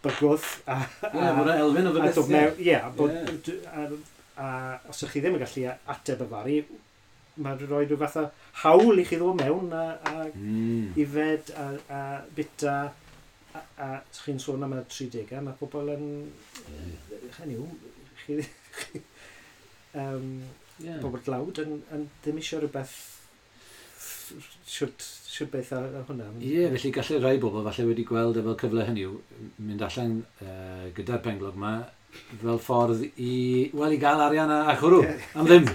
bygwth. Ie, bod yna elfen o fy beth. Ie, a os ydych chi ddim yn gallu ateb y Fari, mae'n rhoi rhyw fath o hawl i chi ddod mewn a ifed a bita a chi'n sôn am y 30au, mae pobl yn... Hynny yw, chi pobl dlawd yn ddim eisiau rhywbeth siwt beth ar hwnna. Ie, felly gallai rai bobl falle wedi gweld efo cyfle hynny yw mynd allan gyda'r penglog yma fel ffordd i, wel, i gael arian a chwrw, am ddim.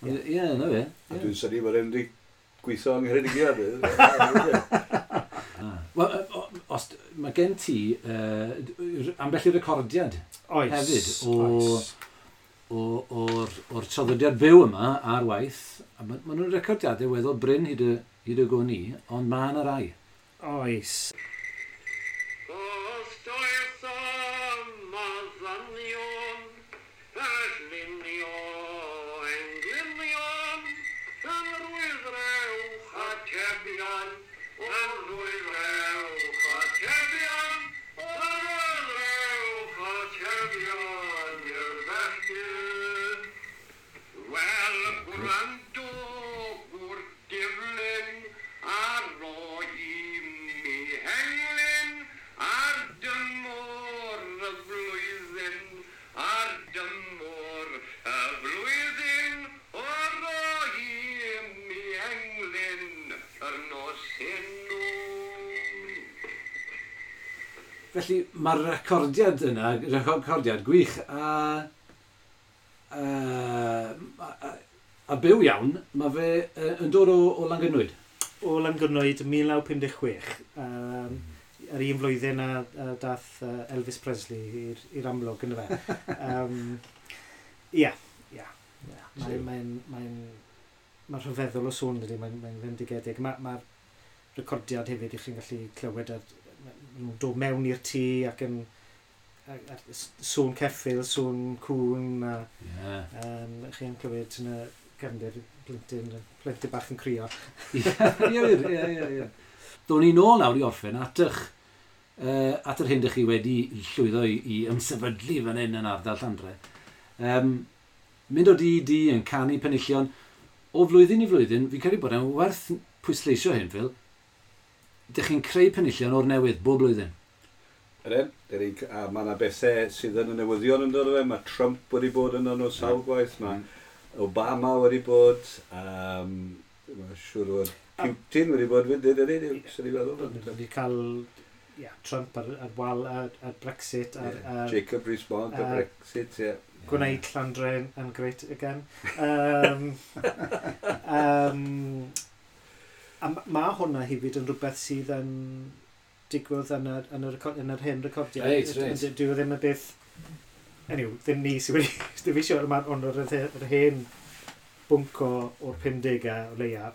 Ie, na fe. A dwi'n synnu bod e'n wedi gweithio yng Ngheredigion. Wel, os mae gen ti ambell i recordiad hefyd o'r traddodiad byw yma ar waith. A ma nhw'n recordiadau weddol brin hyd y gwn i, ond mae yna rai. Oes. Felly mae'r recordiad yna, recordiad gwych a byw iawn, mae fe yn dod o Langynwyd. o Langynwyd 1956, yr un flwyddyn a dath Elvis Presley i'r amlwg yn fe. Ie. Mae'n rhyfeddol o sŵn dydy, mae'n fendigedig. Mae'r recordiad hefyd i chi'n gallu clywed nhw'n dod mewn i'r tŷ ac yn sŵn ceffyl, sŵn cŵn a chi'n clywed yn y gefndir plentyn bach yn crio. Ie. Do'n ni nôl nawr i orffen at at yr hyn dych chi wedi llwyddo i ymsefydlu fan hyn yn ardal Llandre. Mynd o di i di yn canu penillion o flwyddyn i flwyddyn, fi'n credu bod e'n werth pwysleisio hyn, Phil, dych chi'n creu penillion o'r newydd bob blwyddyn. Ydyn, a mae yna bethau sydd yn y newyddion yn dod o fe, mae Trump wedi bod yn nhw sawl gwaith, mae Obama wedi bod, mae'n siŵr bod Putin wedi bod fyd, ydy, sy'n ei feddwl. Wedi cael Trump ar wal, ar Brexit, ar Jacob Rees-Mogg ar Brexit, ie. Gwneud Llandre yn great again. A mae hwnna hefyd yn rhywbeth sydd yn digwydd yn yr hen recordiau. Reit. Dwi ddim yn beth... Anyway, ddim ni sydd wedi... Ddim eisiau, ond yr hen bwnc o'r 50au o leia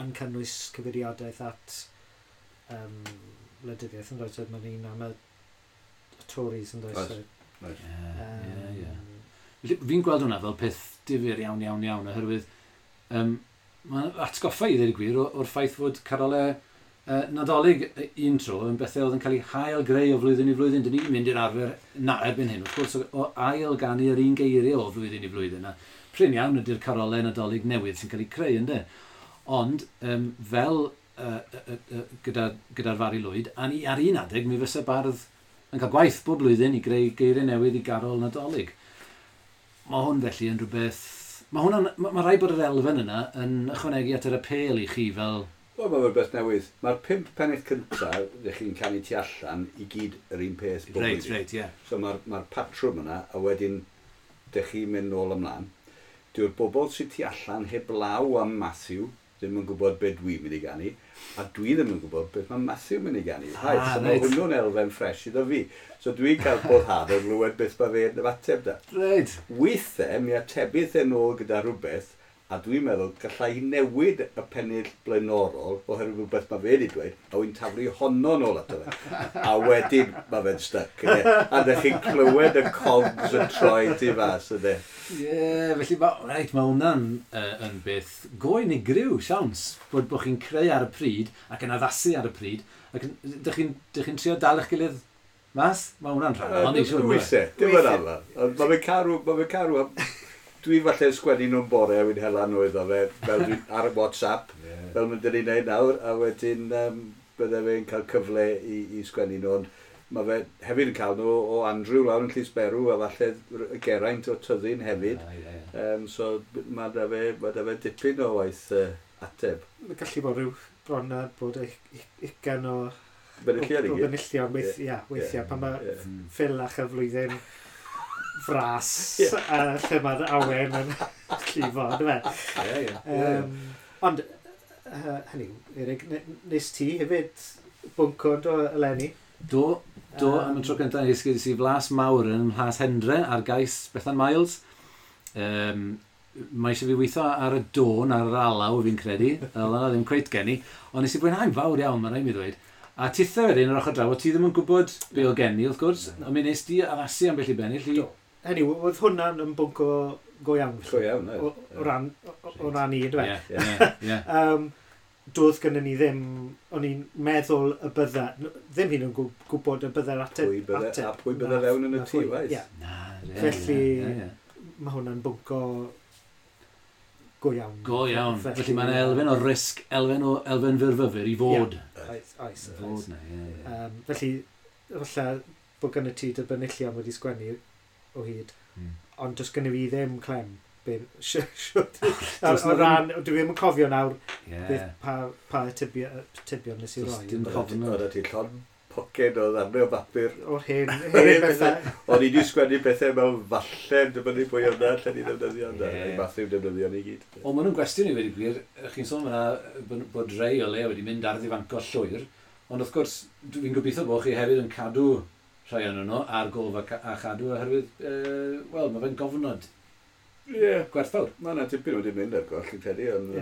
yn cynnwys cyfeiriadaeth at wleidyddiaeth yn does. Mae'n un am y Tories yn does. Ie. Fi'n gweld hwnna fel peth difyr iawn, oherwydd mae'n atgoffa i ddweud y gwir o'r ffaith fod carolau Nadolig un tro yn bethau oedd yn cael ei hail greu o flwyddyn i flwyddyn. Dyn ni'n mynd i'r arfer na erbyn hyn, wrth gwrs, o ail ganu yr un geiriau o flwyddyn i flwyddyn. A prin iawn ydy'r carolau Nadolig newydd sy'n cael eu creu, ynddo. Ond fel gyda'r Fari Lwyd, a ni ar un adeg mi fysa bardd yn cael gwaith bob blwyddyn i greu geiriau newydd i garol Nadolig. Mae hwn felly yn rhywbeth... Mae ma rhaid bod yr elfen yna yn ychwanegu at yr apêl i chi fel... Wel, mae'n rhywbeth newydd. Mae'r 5 pennill cyntaf, ddech chi'n canu tu allan, i gyd yr un peth bob blwyddyn. Reit, ie. So mae'r patrwm yna, a wedyn dych chi'n mynd nôl ymlaen. Dyw'r bobl sydd tu allan heblaw am Matthew ddim yn gwybod beth dwi'n mynd i ganu, a dwi ddim yn gwybod beth mae Matthew mynd i ganu. So mae hwnnw'n elfen ffres iddo fi. So dwi'n cael boddhad o glywed beth mae fe'n ymateb da. Reit. Weithiau, mi atebydd e nôl gyda rhywbeth, a dwi'n meddwl gallai newid y pennill blaenorol oherwydd rhywbeth mae fe wedi dweud, a wy'n taflu honno nôl ato fe. A wedyn mae fe'n stuck. A ddech chi'n clywed y cogs yn troi tu fas, ydy. Ie, felly mae hwnna'n yn beth go unigryw, siawns, bod chi'n creu ar y pryd ac yn addasu ar y pryd, ac dych chi'n trio dal eich gilydd mas? Mae hwnna'n rhan, ond i siŵr. Weithiau, dim yn aml. Mae fe'n carw... Dwi falle sgwennu nhw'n bore a wy'n hela nhw iddo fe, fel dwi ar WhatsApp, fel mynd i'n neud nawr, a wedyn bydde fe'n cael cyfle i sgwennu nhw, ond mae fe hefyd yn cael nhw o Andrew lawr yn Llysberw, a falle Geraint o Tyddyn hefyd. So mae da fe dipyn o waith ateb. Mae gallu bod rhyw bron a bod 20 o benillion weithiau, pan mae Phil a chyflwyddyn fras a lle mae'r awen yn llifo, ynddo fe? Ie. Ond, hynny, Erik, nes ti hefyd bwnco do eleni? Do, am y tro cyntaf nes i flas mawr yn Mhlas Hendre ar gais Bethan Miles. Mae eisiau fi weithio ar y dôn, ar yr alaw fi'n credu, fel yna ddim cweit gen i, ond nes i fwynhau'n fawr iawn, mae'n rhaid mi ddweud. A tithe wedyn yr ochr draw, o ti ddim yn gwybod be o gen i, wrth gwrs, ond mi nes di addasu ambell i bennill i... Hynny, oedd hwnna'n yn bwnc o go iawn. Go iawn, o ran i, yndyfe? Ie. Doedd gynnon ni ddim, o'n i'n meddwl y bydda, ddim hyn yn gwybod y bydda'r ateb. A pwy bydda fewn yn y tŷ, waith. Felly, mae hwnna'n bwnc o go iawn. Go iawn. Felly mae'n elfen o risg, elfen fyrfyfyr i fod. Oes. Felly, falle bod gynno ti dy benillion wedi sgwennu o hyd, ond does gynno fi ddim clem. O ran, dwi ddim yn cofio nawr beth pa atebion nes i roi. Dim cofnod. Oedd ti llond poced o ddarnau o bapur. O'r hen bethau. O'n i wedi sgwennu bethau mewn falle, dibynnu pwy o'na, lle ni ddefnyddio. Yeah. Matthew defnyddio ni gyd. O, maen nhw'n gwestiwn i wedi gwir. Chi'n sôn fyna bod rei o le wedi mynd ar ddifanco llwyr, ond wrth gwrs, dwi'n gobeithio bod chi hefyd yn cadw rhai o'n nhw ar gof a chadw oherwydd, wel, mae fe'n gofnod gwerthfawr. Mae yna tipyn wedi mynd ar goll, fi'n credu, ond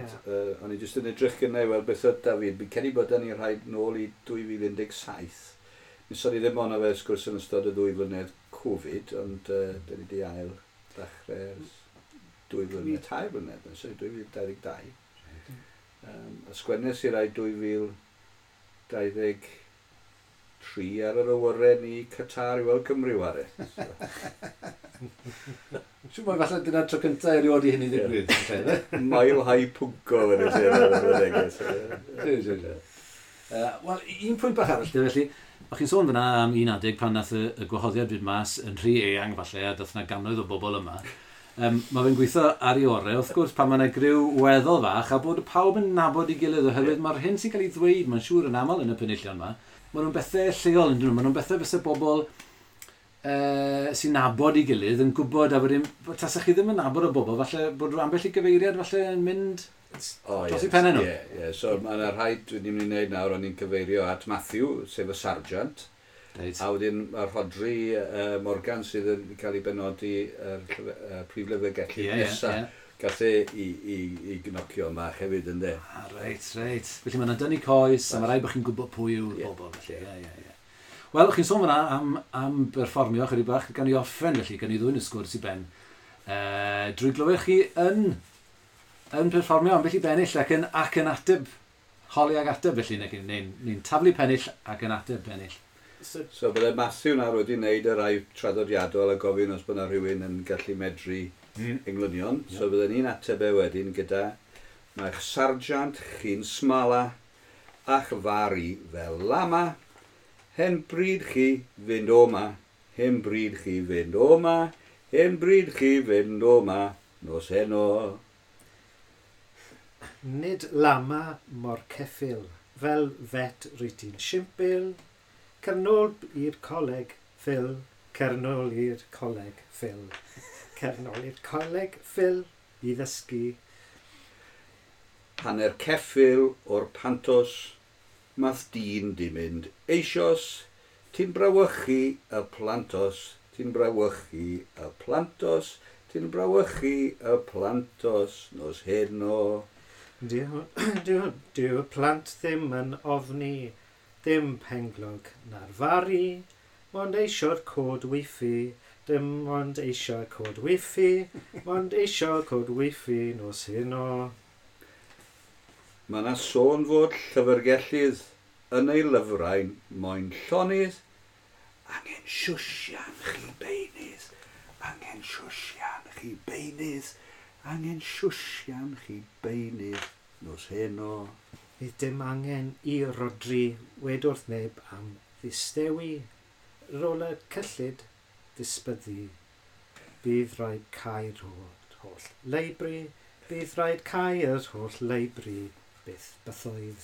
o'n i jyst yn edrych gynnau i weld beth oedd David. Fi'n credu bod ni rhaid nôl i 2017. Nes o'n i ddim ond fe sgwrs yn ystod y 2 flynedd Covid, ond dyn ni wedi ail ddechrau ers 2 flynedd, 3 blynedd, sorry, 2022. A sgwennes i rai 2023 ar yr awyren i Qatar i weld Cymru ware. So. Siwr mai falle dyna'r tro cyntaf erioed i hynny ddigwydd. Mile high pwnco yn y neges. Wel, un pwynt bach arall, felly, o'ch chi'n sôn fyna am un adeg pan nath y gwahoddiad fynd mas yn rhy eang falle, a dath yna gannoedd o bobl yma. Mae fe'n gweithio ar ei orau, wrth gwrs, pan mae yna griw weddol fach, a bod pawb yn nabod ei gilydd, oherwydd mae'r hyn sy'n cael ei ddweud, mae'n siŵr yn aml yn y penillion yma, maen nhw'n bethau lleol, yn dyn nhw, maen nhw'n bethau fyse bobl sy'n nabod ei gilydd yn gwybod, a wedyn, tasach chi ddim yn nabod o bobl, falle bod rhyw ambell i gyfeiriad falle yn mynd dros i pennau nhw. Ie, so mae yna rhai dwi'n mynd i wneud nawr, o'n i'n cyfeirio at Matthew, sef y sarjant. Right. A wedyn mae Rhodri Morgan sydd yn cael ei benodi yr prif lyfrgellydd nesaf. Gath e i gnocio yma hefyd, ynddo. Ah, reit. Felly mae'n dynnu coes, a mae rhaid bod chi'n gwybod pwy yw'r bobl. Felly. Ie. Wel, chi'n sôn fyna am berfformio chydig bach, gan i orffen felly, gan i ddwyn y sgwrs i ben. Drwy glywed chi yn perfformio ambell i bennill ac yn ateb, holi ag ateb felly, neu'n taflu pennill ac yn ateb pennill. So bydde Matthew nawr wedi wneud y rai traddodiadol a gofyn os bod yna rhywun yn gallu medru englynion. Yeah. So bydde ni'n ateb e wedyn gyda mae'ch sarjant chi'n smala a'ch fari fel lama, hen bryd chi fynd o ma, hen bryd chi fynd o ma, hen bryd chi fynd o ma, nos heno. Nid lama mor ceffyl, fel fet rwyt ti'n simpil, cernol i'r coleg, Phil, cernol i'r coleg, Phil. Cernol i'r coleg, Phil, i ddysgu. Hanner ceffyl o'r pantos, math dyn di mynd eisos, ti'n brawychu y plantos, ti'n brawychu y plantos, ti'n brawychu y plantos, nos heno. Dyw y plant ddim yn ofni, ddim penglog na'r fari, mond eisio'r cod wifi, dim ond eisiau cod wifi, mond eisiau cod wifi nos heno. Mae yna sôn fod llyfrgellydd yn ei lyfrau'n moyn llonydd, angen siwsian chi beunydd, angen siwsian chi beunydd, angen siwsian chi beunydd nos heno. Fydd dim angen i Rodri wed wrth neb am ddistewi, rôl y cyllid disbyddu. Bydd rhaid cau'r holl leibri, bydd rhaid cau'r holl leibri, byth bythoedd.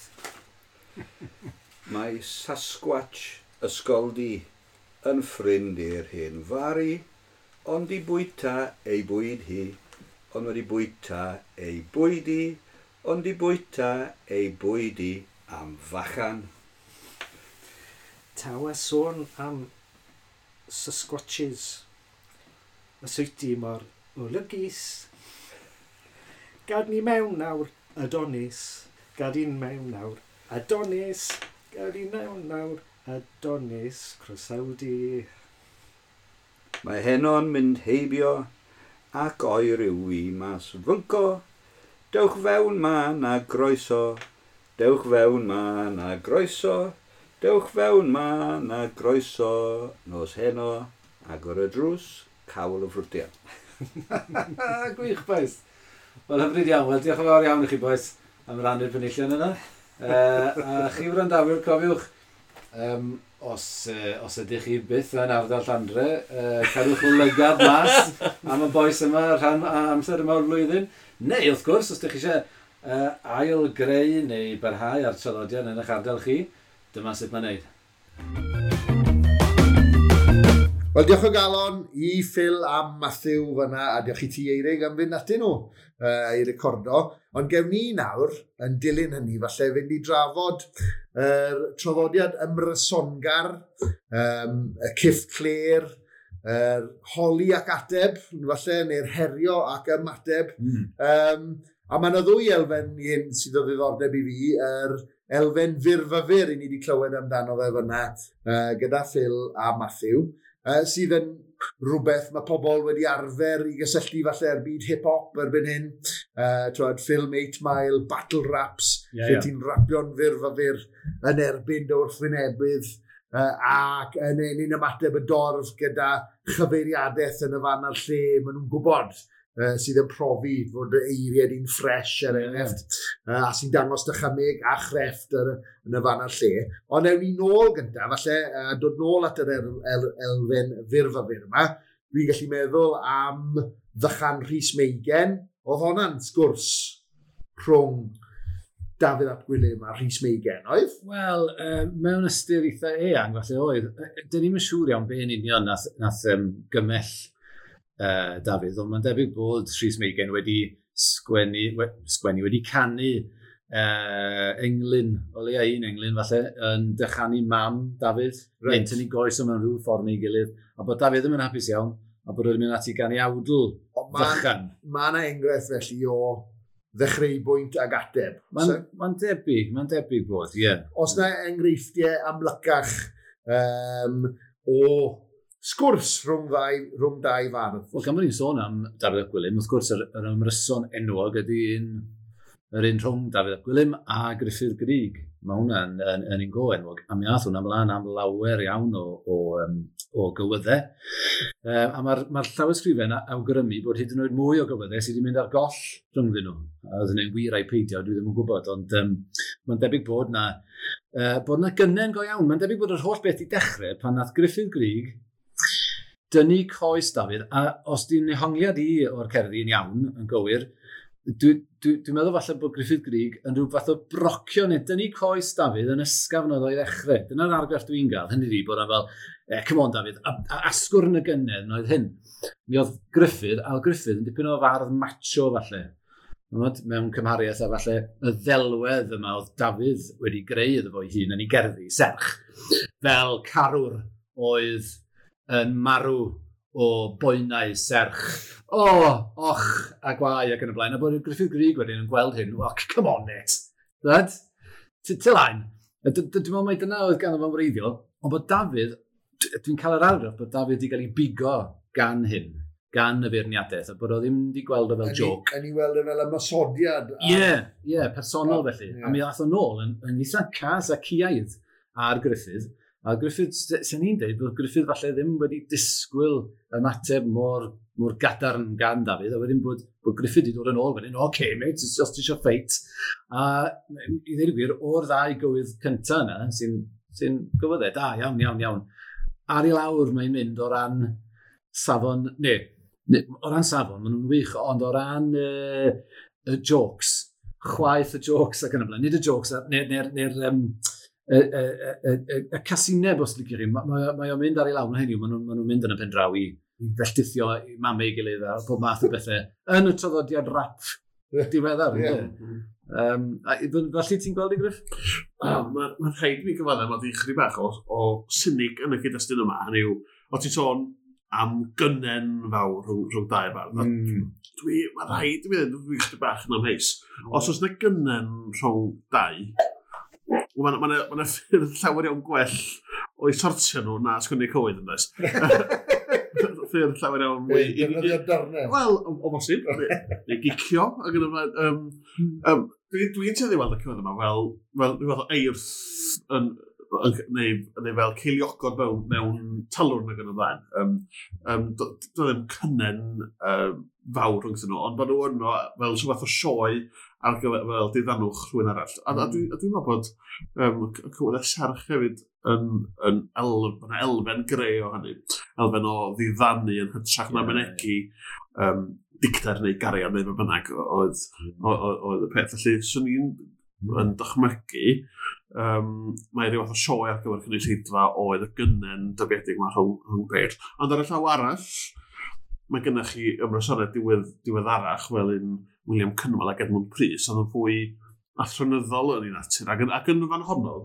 Mae Sasquatch ysgoldi yn ffrind i'r hen fari, ond i bwyta ei bwyd hi, ond wedi bwyta ei bwyd hi, ond i bwyta ei bwyd hi am fachan. Taw a sôn am Sasquatches. Y swyty mor olygus. Gad ni mewn nawr, Adonis. Gad i'n mewn nawr, Adonis. Gad i mewn nawr, Adonis. Croesawdi. Mae heno'n mynd heibio ac oer yw i mas fynco. Dewch fewn ma na groeso, dewch fewn ma na groeso, dewch fewn ma na groeso, nos heno, agor y drws, cawl y ffrwtiau. Gwych, boys. Wel, hyfryd iawn. Wel, diolch yn fawr iawn i chi, boys, am rannu'r penillion yna. A chi wrandawyr, cofiwch, os ydych chi byth yn ardal Llandre, cadwch lygad mas am y bois yma rhan amser yma o'r flwyddyn. Neu, wrth gwrs, os ydych chi eisiau ail greu neu barhau ar traddodiad yn eich ardal chi, dyma sut mae'n neud. Wel, diolch o galon i Phil a Matthew fyna, a diolch i ti Eirig am fynd atyn nhw i recordo. Ond gewn ni nawr, yn dilyn hynny, falle fynd i drafod yr traddodiad ymrysongar, y cyff cler, yr holi ac ateb, falle, neu'r herio ac ymateb. A mae yna ddwy elfen i hyn sydd o ddiddordeb i fi, yr elfen fyrfyfyr i ni wedi clywed amdano fe fyna gyda Phil a Matthew, sydd yn rhywbeth mae pobl wedi arfer i gysylltu falle ar byd hip-hop erbyn hyn. Twod, film 8 Mile, battle raps, lle ti'n rapio'n fyrfyfyr yn erbyn dy wrthwynebydd, ac yn enyn ymateb y dorf gyda chyfeiriadaeth yn y fan a'r lle maen nhw'n gwybod, sydd yn profi fod y eiriau di'n ffres er enghraifft, a sy'n dangos dychymyg a chrefft yn y fan a'r lle. Ond ewn ni nôl gyntaf, falle, dod nôl at yr elfen fyrfyfyr yma, dwi'n gallu meddwl am ddychan Rhys Meigen. Oedd honna'n sgwrs rhwng Dafydd ap Gwilym a Rhys Meigen, oedd? Wel, mewn ystyr eitha eang, falle oedd. Dyn ni'm yn siŵr iawn be yn union nath gymell Dafydd, ond mae'n debyg bod Rhys Meigen wedi sgwennu, wedi canu englyn, o leia un englyn falle, yn dychanu mam Dafydd, neu'n tynnu goes o mewn rhyw ffordd neu gilydd, a bod Dafydd ddim yn hapus iawn, a bod wedi mynd ati ganu awdl fychan. Mae yna enghraifft felly o ddechreu-bwynt ag ateb. Mae'n debyg bod, ie. Yeah. Os na enghreifftiau amlycach o sgwrs rhwng dau fardd. Wel, gan bod ni'n sôn am Dafydd ap Gwilym, wrth gwrs yr ymryson enwog ydy yr un rhwng Dafydd ap Gwilym a Gruffudd Gryg. Mae hwnna'n yn un go enwog, a mi ath hwnna ymlaen am lawer iawn o gywyddau. A mae'r llawysgrifen awgrymu bod hyd yn oed mwy o gywyddau sydd wedi mynd ar goll rhyngddyn nhw. A oedd hynny'n wir ai peidio, dwi ddim yn gwybod, ond mae'n debyg bod na gynnen go iawn. Mae'n debyg bod yr holl beth i dechrau pan nath Gruffudd Gryg dynnu coes Dafydd, a os di'n nehongliad i o'r cerddi yn iawn, yn gywir, dwi'n meddwl falle bod Gruffudd Gryg yn rhyw fath o brocio neu dynnu coes Dafydd yn ysgafn oedd o'i ddechrau. Dyna'r argraff dwi'n gael, hynny ydi bod o'n fel, come on Dafydd, a asgwrn y gynnedd oedd hyn. Mi oedd Gruffudd, a oedd Gruffudd yn dipyn o fardd macho falle. Mewn cymhariaeth a falle y ddelwedd yma oedd Dafydd wedi greu iddo fo'i hun yn ei gerddi, serch, fel carwr oedd yn marw o boenau serch. O, och, a gwae ac yn y blaen. A bod Gruffudd Gryg wedyn yn gweld hyn, well, come on, mate. Right? Tylaen. Dwi'n meddwl mai dyna oedd ganddo fo'n wreiddiol, ond bod Dafydd, dwi'n cael yr argraff bod Dafydd wedi cael ei bigo gan hyn, gan y feirniadaeth, a bod o ddim wedi gweld o fel joke. Yn ei weld o fel ymosodiad. Ie, personol felly. Yeah. A mi ddath o nôl yn eitha cas a ciaidd ar Gruffudd. A Gruffudd, sy'n ni'n dweud, bod Gruffudd falle ddim wedi disgwyl ymateb mor gadarn gan Dafydd, a wedyn bod Gruffudd wedi dod yn ôl wedyn, oce, mate, os ti eisiau ffeit. A i ddweud y gwir, o'r ddau gywydd cyntaf yna, sy'n gywyddau, da, iawn, iawn, iawn. Ar i lawr mae'n mynd o ran safon, neu, o ran safon, maen nhw'n wych, ond o ran y jokes, chwaith y jokes ac yn y blaen, nid y jokes, neu'r y casineb, os licio chi, mae o'n mynd ar ei lawr, hynny yw, maen nhw'n mynd yn y pen draw i felltithio i mamau ei gilydd a pob math o bethau yn y traddodiad rap diweddar. Felly ti'n gweld i Griff? Mae'n rhaid mi gyfaddef, mae di chydig bach o cynig yn y cyd-destun yma. Hynny yw, o ti'n sôn am gynnen fawr rhwng dau fardd. Mae'n rhaid i mi ddweud, dwi'n chydig bach yn amheus. Os oes yna gynnen rhwng dau, Mae yna ffyrdd llawer iawn gwell o'i sortio nhw na sgwennu cywydd yn does. Ffyrdd llawer iawn mwy... Defnyddio darnau. Wel, o bosib. Neu gicio. Dwi'n tueddu i weld y cywydd yma fel rhyw fath o eirth neu fel ceiliogod mewn talwrn ac yn y blaen. Doedd ddim cynnen fawr rhwngthyn nhw, ond bod nhw yno fel rhyw fath o sioe ar gyfer fel diddanwch rhywun arall. A dwi'n meddwl bod y cywyddau serch hefyd yn elfen greu o hynny. Elfen o ddiddanu yn hytrach na mynegi dicter neu gariad neu be bynnag oedd y peth. Felly, swn i'n yn dychmygu Mae rhyw fath o sioe ar gyfer cynulleidfa oedd y gynnen dybiedig yma rhwng beirdd. Ond ar y llaw arall, mae gennych chi ymrysonau diweddarach fel un William Cynwal ac Edmund Prys, ond yn fwy athronyddol yn ei natur. Ac yn fan honno,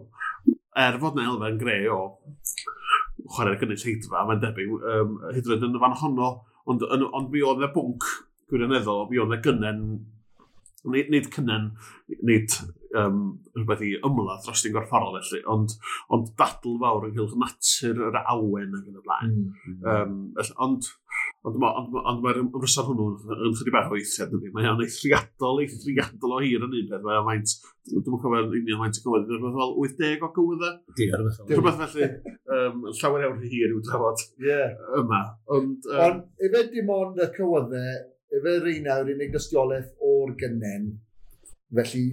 er fod na elfen gre o chwarae'r gynulleidfa, mae'n debyg, hyd yn oed yn y fan honno, ond mi oedd 'na bwnc gwirioneddol, mi oedd 'na gynnen, nid cynnen, nid rhywbeth i ymladd dros di'n gorfforol felly, ond dadl fawr ynghylch natur yr awen ac yn y blaen. Ond mae'r ymryson hwnnw yn chydig bach o eithriad, dydy. Mae o'n eithriadol o hir yn un peth. Mae o'n faint, dwi'm yn cofio'n union faint o gywydd, rhywbeth fel 80 o gywyddau. Rhywbeth felly, llawer iawn rhy hir i'w drafod yma. Ond efe dim ond y cywyddau, efe rheina yw'r unig dystiolaeth o'r gynnen, felly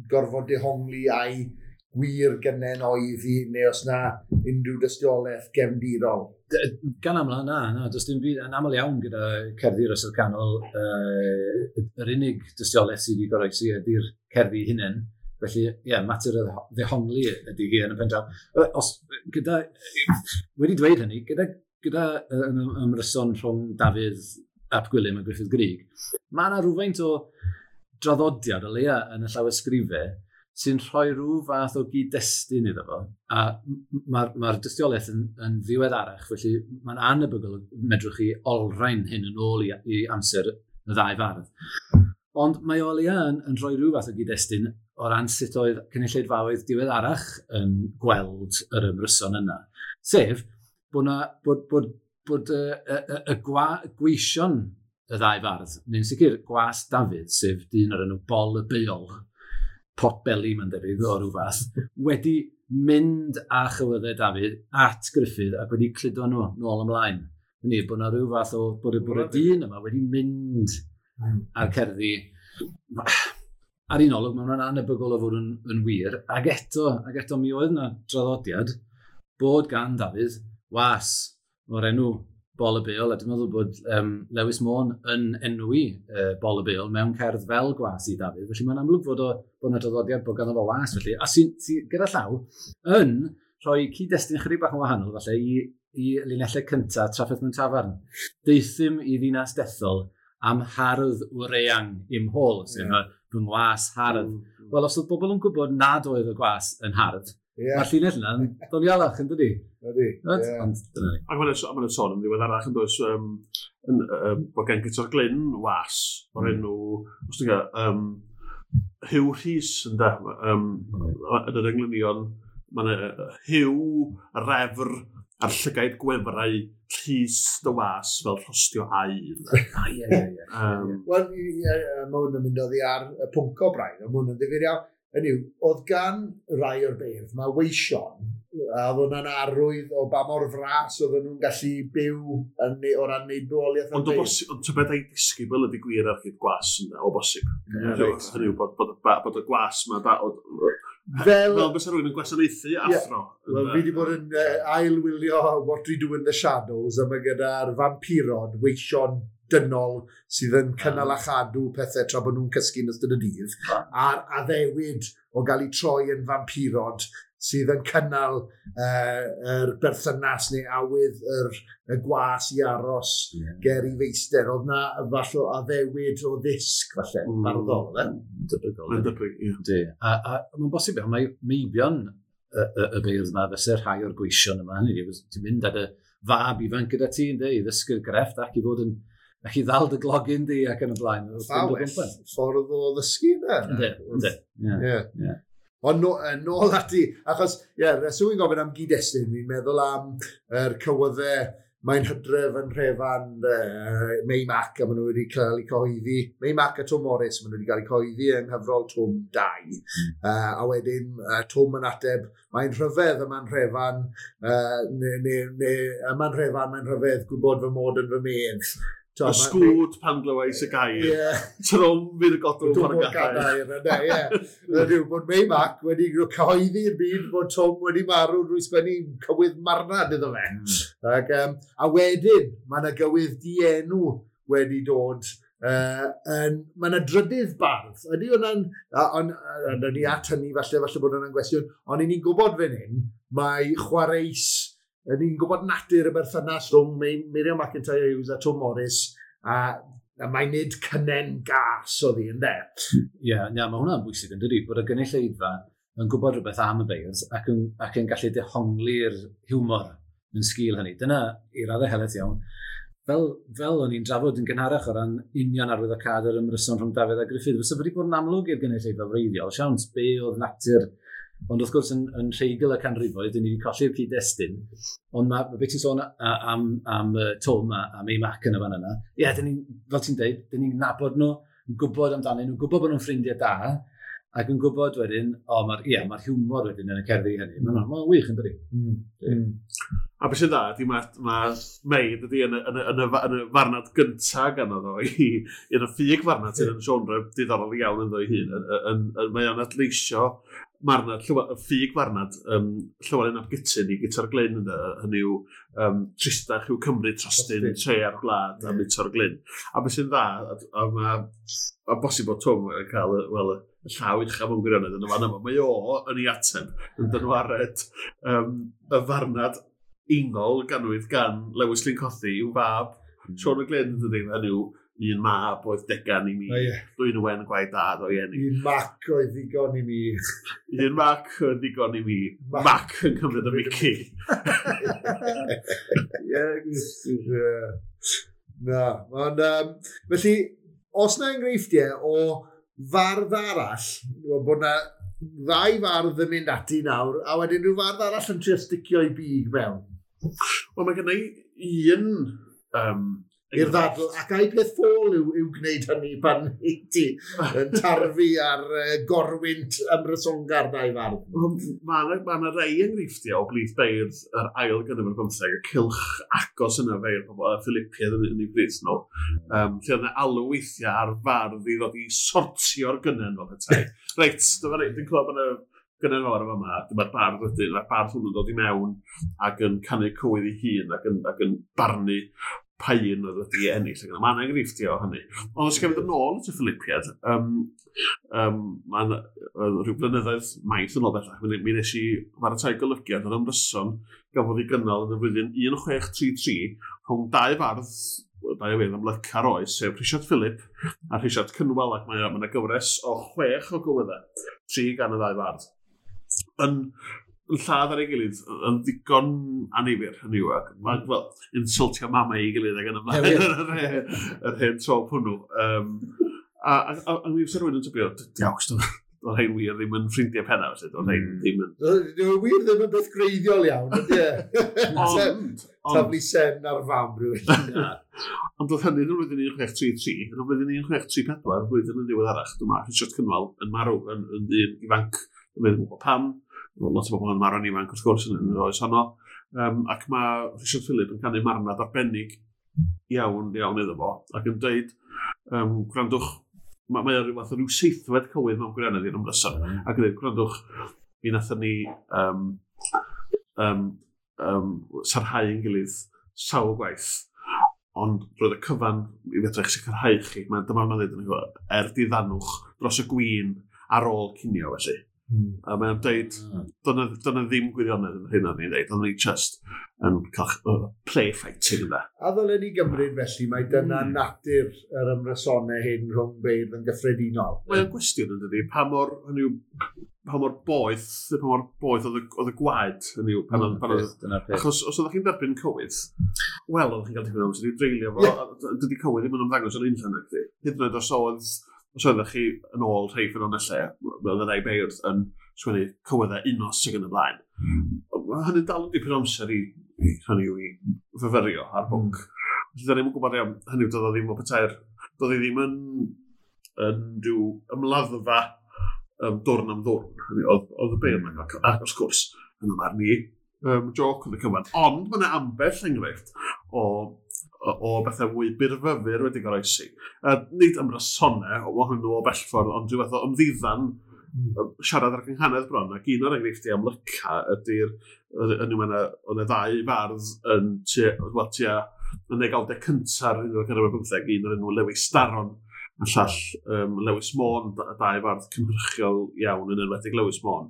gorfod dehongli a'i gwir gynnen oedd hi, neu os na unrhyw dystiolaeth gefndirol. Gan aml, na, does dim byd, yn aml iawn gyda cerddi'r Oesoedd Canol, yr unig dystiolaeth sydd wedi goroesi ydy'r cerddi hunain. Felly, ie, mater o ddehongli ydy hi yn y pen draw. Wedi dweud hynny, gyda ymryson rhwng Dafydd ap Gwilym a Gruffudd Gryg, mae yna rhywfaint o draddodiad o leia yn y llawysgrifau sy'n rhoi rhyw fath o gyd-destun iddo fo, a mae'r dystiolaeth yn ddiweddarach, felly mae'n anebygol medrwch chi olrhain hyn yn ôl i amser y ddau fardd. Ond mae o leia yn rhoi rhyw fath o gyd-destun o ran sut oedd cynulleidfaoedd diweddarach yn gweld yr ymryson yna. Sef, bod y gweision y ddau fardd, neu'n sicr gwas Dafydd, sef dyn o'r enw Bol y Beol, potbelly mae'n debyg o ryw fath, wedi mynd â chywyddau Dafydd at Gruffudd ac wedi cludo nhw nôl ymlaen. Hynny, bod yna rhyw fath o, bod y dyn yma wedi mynd a'r cerddi. Ar un olwg, mae hwnna'n anebygol o fod yn wir, ac eto mi oedd yna draddodiad bod gan Dafydd was o'r enw Bol y Beol, a dwi'n meddwl bod Lewis Môn yn enwi Bol y Beol mewn cerdd fel gwas i Dafydd, felly mae'n amlwg bod yna draddodiad bod ganddo fo was, felly, a sy'n gyda llaw yn rhoi cyd-destun chydig bach yn wahanol, falle, i linellau cyntaf Trafferth mewn Tafarn. Deuthum i ddinas dethol am hardd wreang i'm hôl, sef fy ngwas hardd. Wel, os oedd bobl yn gwybod nad oedd y gwas yn hardd, mae'r llinell yna'n donialach, yn dydi? Ydy, ie. Ond dyna ni. Ac mae'n sôn yn ddiweddarach yn does, bod gen Guto'r Glyn was o'r enw, os ti'n gael, Huw Rhys, ynde, yn yr englynion, mae'n Huw, refr, a'r llygaid gwefrau Rhys dy was fel rhostio aur. Ie. Wel, mae hwn yn mynd oddi ar y pwnc o braidd, mae hwn yn ddifyr iawn. Hynny yw, oedd gan rai o'r beirdd, mae weision, a oedd hwnna'n arwydd o ba mor fras oedden nhw'n gallu byw o ran wneud bywoliaeth o'r beirdd. Ond tybed ai disgybl ydy gwir ar hyd gwas yna, o bosib. Hynny yw, bod y gwas yma, fel bysa rhywun yn gwasanaethu athro. Wel, fi wedi bod yn ailwylio What We Do in the Shadows, a mae gyda'r vampirod, weision dynol sydd yn cynnal a chadw pethau tra bod nhw'n cysgu yn ystod y dydd, a'r addewid o gael eu troi yn vampirod sydd yn cynnal yr berthynas neu awydd y gwas i aros ger i feister. Oedd na falle addewid o ddisg, falle, barddol, fe? Debygol. Debyg, ie. A mae'n bosib iawn, mae meibion y beirdd yma fysa rhai o'r gweision yma. Hynny yw, ti'n mynd ar y fab ifanc gyda ti, ynddi, i ddysgu'r grefft ac i fod yn ac i ddal dy glogyn di ac yn y blaen. Well, ffordd o ddysgu yna. Ynddi, ynddi. Ond nôl ati, achos, ie, reswm i'n gofyn am gyd-destun, fi'n meddwl am yr cywyddau, mae'n hydref yn Rhefan, Mei Mac, a maen nhw wedi cael eu cyhoeddi, Mei Mac a Twm Morris, maen nhw wedi cael eu cyhoeddi yng nghyfrol Twm 2. A wedyn, Twm yn ateb, mae'n rhyfedd yma'n Rhefan, yma'n Rhefan, mae'n rhyfedd gwybod fy mod yn fy medd. Y sgwd pan glywais y gair. Trwm fydd y godwm ar y gadair. Ie. Bod Mei Mac wedi cyhoeddi'r byd bod Twm wedi marw drwy sgwennu cywydd marnad iddo fe. Ac, a wedyn, mae yna gywydd dienw wedi dod Mae yna drydydd bardd. Ydy hwnna'n, ond ni at hynny falle bod hwnna'n gwestiwn, ond i ni'n gwybod fan hyn, mae chwareus, ni'n gwybod natur y berthynas rhwng Miriam McIntyre Hughes a Tom Morris, a mae nid cynnen gas oedd hi, ynde? Ie, yeah, mae hwnna'n bwysig yn dydi, bod y gynulleidfa yn gwybod rhywbeth am y beirdd ac yn gallu dehongli'r hiwmor yn sgil hynny. Dyna i raddau helaeth iawn. Fel o'n i'n drafod yn gynharach o ran union arwyddocâd yr ymryson rhwng Dafydd a Gruffydd, fysa wedi bod yn amlwg i'r gynulleidfa wreiddiol, siawns be oedd natur, ond wrth gwrs yn rheigl y canrifoedd, dyn ni wedi colli'r cyd-destun, ond mae beth ti'n sôn am Tom a Mei Mac yn y fan yna, ie, dyn ni, fel ti'n deud, dyn ni'n nabod nhw, yn gwybod amdanyn nhw, gwybod bod nhw'n ffrindiau da, ac yn gwybod wedyn, mae'r hiwmor wedyn yn y cerddi hynny. Mae'n wych yn dydi. A beth sy'n dda, ydy mae Mei dydy yn y farnad gyntaf ganddo fo, yn y ffug farnad sydd yn genre diddorol iawn ynddo ei hun. Mae o'n adleisio marnad, ffug farnad Llywelyn ap Gutyn i Guto'r Glyn, hynny yw tristach yw Cymru trostyn tre ar gwlad a Guto'r Glyn. A beth sy'n dda, a mae bosib bod Twm yn cael y llaw uchaf mewn gwirionedd yn y fan yma. Mae o yn ei ateb yn dynwared y farnad ingol ganwyd gan Lewis Lyn Cothi i'w fab Siôn y Glyn, dydy, hynny yw un mab oedd degan i mi, Dwynwen gwaed dad o'i eni. Un mac oedd ddigon i mi. Un mac oedd ddigon i mi. Mac yn cymryd y mici. Ie. Na, ond felly, os na enghreifftiau o fardd arall, bod na ddau fardd yn mynd ati nawr, a wedyn rhyw fardd arall yn trio sticio i big mewn. Wel, mae gen i un... i'r ddadl, ac ai peth ffôl yw gwneud hynny pan i ti yn tarfu ar gorwynt ymrysongar dau fardd. Mae yna rei enghreifftiau o blith beirdd yr ail ganrif ar bymtheg, y cylch agos yna feirdd pobl, y Philippiaid yn ei bryd nhw, lle oedd yna alw weithiau ar fardd i ddod i sortio'r gynnen fel petai. Reit, dyma ni, dwi'n clywed bod yna gynnen fawr yma, dyma'r bardd wedyn, mae'r bardd hwnnw'n dod i mewn ac yn canu cywydd ei hun ac yn barnu pa un oedd wedi ennill. Mae yna enghreifftiau o hynny. Ond os gael fynd yn ôl at y Philippiaid, mae'n rhyw blynyddoedd maith yn ôl bellach, mi nes i baratoi golygiad o'r ymryson gafodd ei gynnal yn y flwyddyn 1633 rhwng dau fardd, dau feirdd amlyca'r oes, sef Rhisiart Philip a Rhisiart Cynwal, ac mae yna gyfres o 6 o gywyddau, 3 gan y ddau fardd. Yn lladd ar ei gilydd yn ddigon annifyr, hynny yw, ac wel, insultio mama ei gilydd ac yn ymlaen yr hen trop hwnnw. A mi fysa rhywun yn tybio, diawch, doedd rhain wir ddim yn ffrindiau penna, felly, doedd rhain ddim yn... Doedd wir ddim yn beth greiddiol iawn, ydy e? Taflu sen ar fam rhywun. Ond doedd hynny yn y flwyddyn 1633, yn y flwyddyn 1634, flwyddyn yn ddiweddarach, dyma Rhisiart Cynwal yn marw yn ddyn ifanc, yn meddwl gwybod pam, lot o bobl yn marw'n ifanc wrth gwrs yn yr oes honno, ac mae Rhisiart Philip yn canu marnad arbennig iawn iawn iddo fo, ac yn dweud, gwrandwch, mae o rhyw fath o ryw seithfed cywydd mewn gwirionedd i'r ymryson, ac yn dweud, gwrandwch, mi nathon ni sarhau yn gilydd sawl gwaith, ond roedd y cyfan i fedra eich sicrhau chi, dyma mae'n dweud yn er diddanwch dros y gwin ar ôl cinio felly. A mae'n dweud, dyna ddim gwirionedd yn hyn o'n i'n dweud, ond ni just yn cael play fighting yna. A ddylen ni gymryd felly, mae dyna natur yr ymrysonau hyn rhwng beirdd yn gyffredinol. Mae'n gwestiwn yn dydi, pa mor boeth oedd y gwaed, hynny yw, pan oedd... Achos os oeddech chi'n derbyn cywydd, wel, oeddech chi'n cael tipyn o amser i dreulio fo, dydy cywydd ddim yn ymddangos yn unllan nag di. Hyd yn oed os oeddech chi yn ôl rhai ffynonellau, oedd y rhai beirdd yn sgwennu cywyddau unos sydd yn y blaen. Mae hynny'n dal yn dipyn o amser i hynny yw i fyfyrio ar bwnc. Felly, da ni'm yn gwybod iawn, hynny yw, doedd o ddim o petai'r... Doedd hi ddim yn rhyw ymladdfa dwrn am ddwrn. Oedd y beirdd yma, ac wrth gwrs, yn ymar ni, joc oedd y cyfan. Ond mae yna ambell enghraifft o bethau mwy byrfyfyr wedi goroesi. Nid ymrysonau ohonyn nhw o bell ffordd, ond rhyw fath o ymddiddan siarad ar gynghanedd bron, ac un o'r enghreifftiau amlyca ydy'r, oedd yna ddau fardd yn tua yn degawdau cynta'r unfed ganrif ar bymtheg, un o'r enw Lewis Daron, a llall Lewis Môn, dau fardd cynhyrchiol iawn yn enwedig Lewis Môn.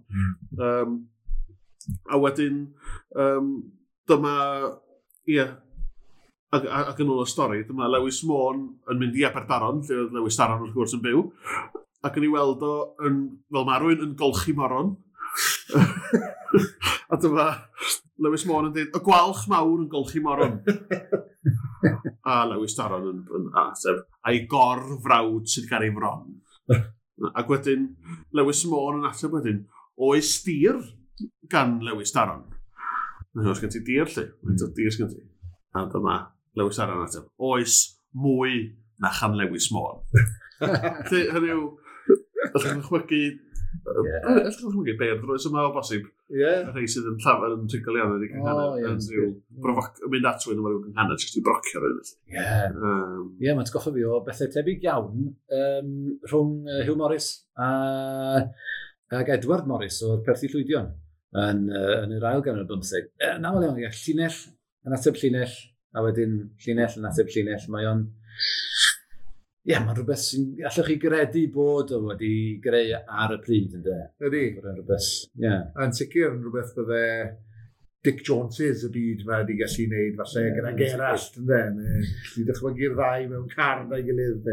A wedyn, dyma, ie, ac yn ôl y stori, dyma Lewis Môn yn mynd i Aberdaron, lle oedd Lewis Daron wrth gwrs yn byw, ac yn ei weld o yn, fel mae rhywun yn golchi moron. A dyma Lewis Môn yn dweud, y gwalch mawr yn golchi moron. A Lewis Daron yn ateb, a'i gorfrawd sydd gan ei fron. Ac wedyn, Lewis Môn yn ateb wedyn, oes dir gan Lewis Daron? Oes gen ti dir, lle? Faint o dir sgen ti? A dyma Lewis Daron yn ateb, oes mwy na chan Lewis Môn. Felly, hynny yw, allwch chi'n chwygu. Allwch chi'n chwygu beirdd roes yma o bosib. Ie. Y rhai sydd yn llafar yn rhugl iawn yn ei gynghanedd. Yn rhyw mynd at rhywun efo rhyw gynghanedd, jyst i brocio rhywun. Ie. Ie, mae'n atgoffa fi o bethau tebyg iawn rhwng Hugh Morris ac Edward Morris o'r Perthi Llwydion yn yr ail ganrif ar bymtheg. Yn aml iawn, ie, llinell yn ateb llinell, a wedyn llinell yn ateb llinell. Mae o'n... Ie, mae'n rhywbeth sy'n... Allwch chi gredu bod o wedi greu ar y pryd, ynddo? Ydy. Bod o'n rhywbeth, ie. Yn sicr yn rhywbeth bydde Dick Joneses y byd ma wedi gallu gwneud, falle gyda Gerallt, ynddo? Neu gallu dychmygu'r ddau mewn car na'i gilydd.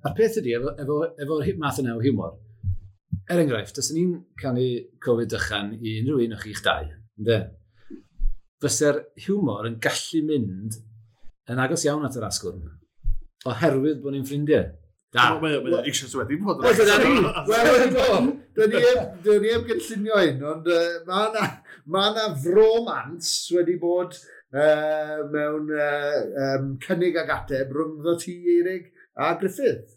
A'r peth ydy, efo'r math yna o hiwmor, er enghraifft, os ni'n canu Covid dychan i unrhyw un o'ch chi'ch dau, ynddo? Fyse'r hiwmor yn gallu mynd yn agos iawn at yr asgwrn, oherwydd bod ni'n ffrindiau. Da. Mae eisoes wedi bod. Wel, dyn ni heb gynllunio hyn, ond mae yna fromans wedi bod mewn cynnig ag ateb rhyngddo ti, Eirig, a Griffith,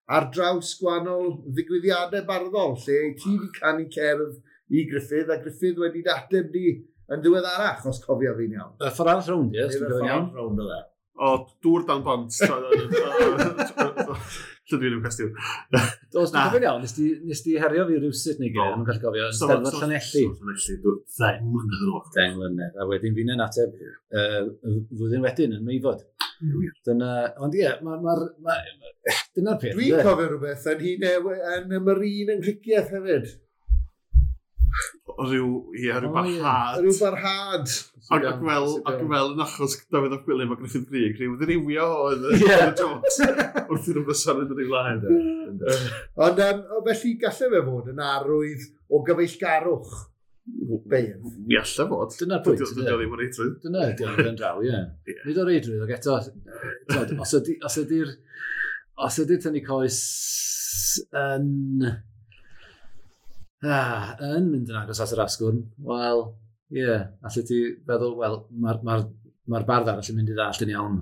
ar draws gwahanol ddigwyddiadau barddol, lle ti wedi canu cerdd i Griffith, a Griffith wedi dateb di yn ddiweddarach, os cofio fi'n iawn. Y ffordd arall rownd, ie, os dwi'n cofio'n iawn. Ffordd rownd o dde. O, dŵr dan bont. Lle dwi'n i'w cwestiwn. Os dwi'n cofio'n iawn, nes di herio fi rywsut neu gilydd, yn gallu cofio, yn Steddfod Llanelli. Llanelli, 10 mlynedd yn ôl. 10 mlynedd, a wedyn fi'n ateb flwyddyn wedyn yn Meifod. Dyna, ond ie, dyna'r peth. Dwi'n cofio rhywbeth yn yn y Marine yng Nghricieth hefyd. Rhyw barhad. Rhyw barhad. Ac fel yn achos Dafydd ap Gwilym a Gruffydd Gryg, rhyw ddiriwio oedd y jokes wrth i'r ymryson yn yr ei flaen. Ond felly gallai fe fod yn arwydd o gyfeillgarwch beirdd. Mi allai fod. Dyna'r pwynt. Dydy o ddim o reidrwydd. Dyna ydy o'n ben draw, ie. Nid o reidrwydd, ac eto, os ydy'r tynnu coes yn mynd yn agos at yr asgwrn, wel, ie, yeah, allet ti feddwl, wel, mae'r bardd arall yn mynd i ddallt yn iawn.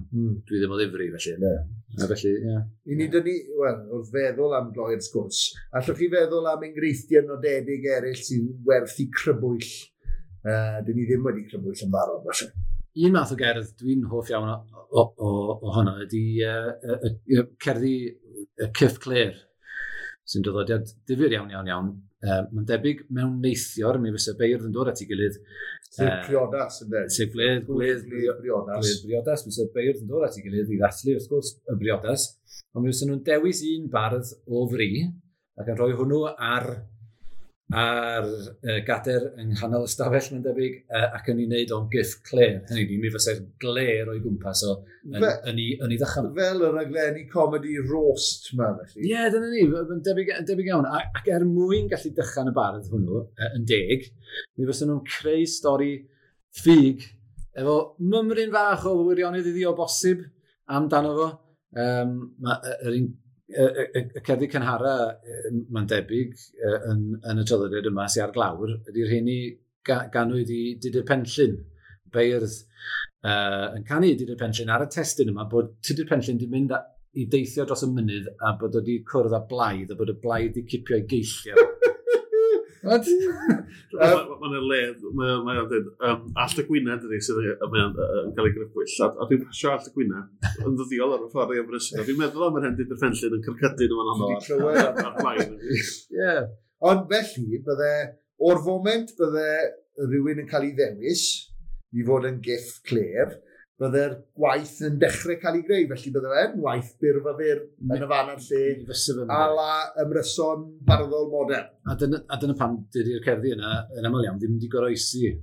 Dwi ddim o ddifri, felly, ynddo. A felly, ie. Yeah. I ni dynnu, wel, wrth feddwl am gloi'r sgwrs, allwch chi feddwl am enghreifftiau nodedig eraill sy'n werth i crybwyll? Dyn ni ddim wedi crybwyll yn barod, felly. Un math o gerdd dwi'n hoff iawn ohono ydy cerddi Cyff Clêr, sy'n draddodiad difyr iawn, iawn, iawn. Mae'n debyg mewn neithior, mi fysa beirdd yn dod at ei gilydd. Sef priodas, ynddo? Sef gwledd briodas. Gwledd briodas, fysa beirdd yn dod at ei gilydd i ddathlu, wrth gwrs, y briodas. Ond mi fysa nhw'n dewis un bardd o fri ac yn rhoi hwnnw ar gader yng nghanol ystafell, mae'n debyg, ac yn ei wneud o'n gyff clêr. Hynny yw, mi fysa'r glêr o'i gwmpas o yn ei ddychan. Fel y raglenni comedy roast ma, felly. Ie, dyna ni, yn debyg iawn. Ac er mwyn gallu dychan y bardd hwnnw, yn deg, mi fysa nhw'n creu stori ffug efo mymryn fach o wirionedd iddi o bosib amdano fo. Y cerddi cynhara, mae'n debyg, yn y traddodiad yma sy'n ar glawr, ydy'r rheini ganwyd i Tudur Penllyn, beirdd yn canu Tudur Penllyn ar y testun yma, bod Tudur Penllyn wedi mynd i deithio dros y mynydd a bod wedi cwrdd â blaidd, a bod y blaidd wedi cipio ei geillio. Mae'n le, mae'n dweud, Allt y Gwynedd ydy sydd yn cael ei grybwyll, a dwi'n pasio Allt y Gwynedd yn ddyddiol ar y ffordd i Aberystwyth. Dwi'n meddwl am yr hen Tudur Penllyn yn cyrcydu nhw yn anodd ar blaen. Ond felly, bydde, o'r foment bydde rhywun yn cael ei ddewis i fod yn gyff clêr, bydde'r gwaith yn dechrau cael ei greu, felly bydde fe'n waith byrfyfyr yn y fan a'r lle, a la ymryson barddol modern. A dyna pam dydy'r cerddi yna yn aml iawn ddim wedi goroesi.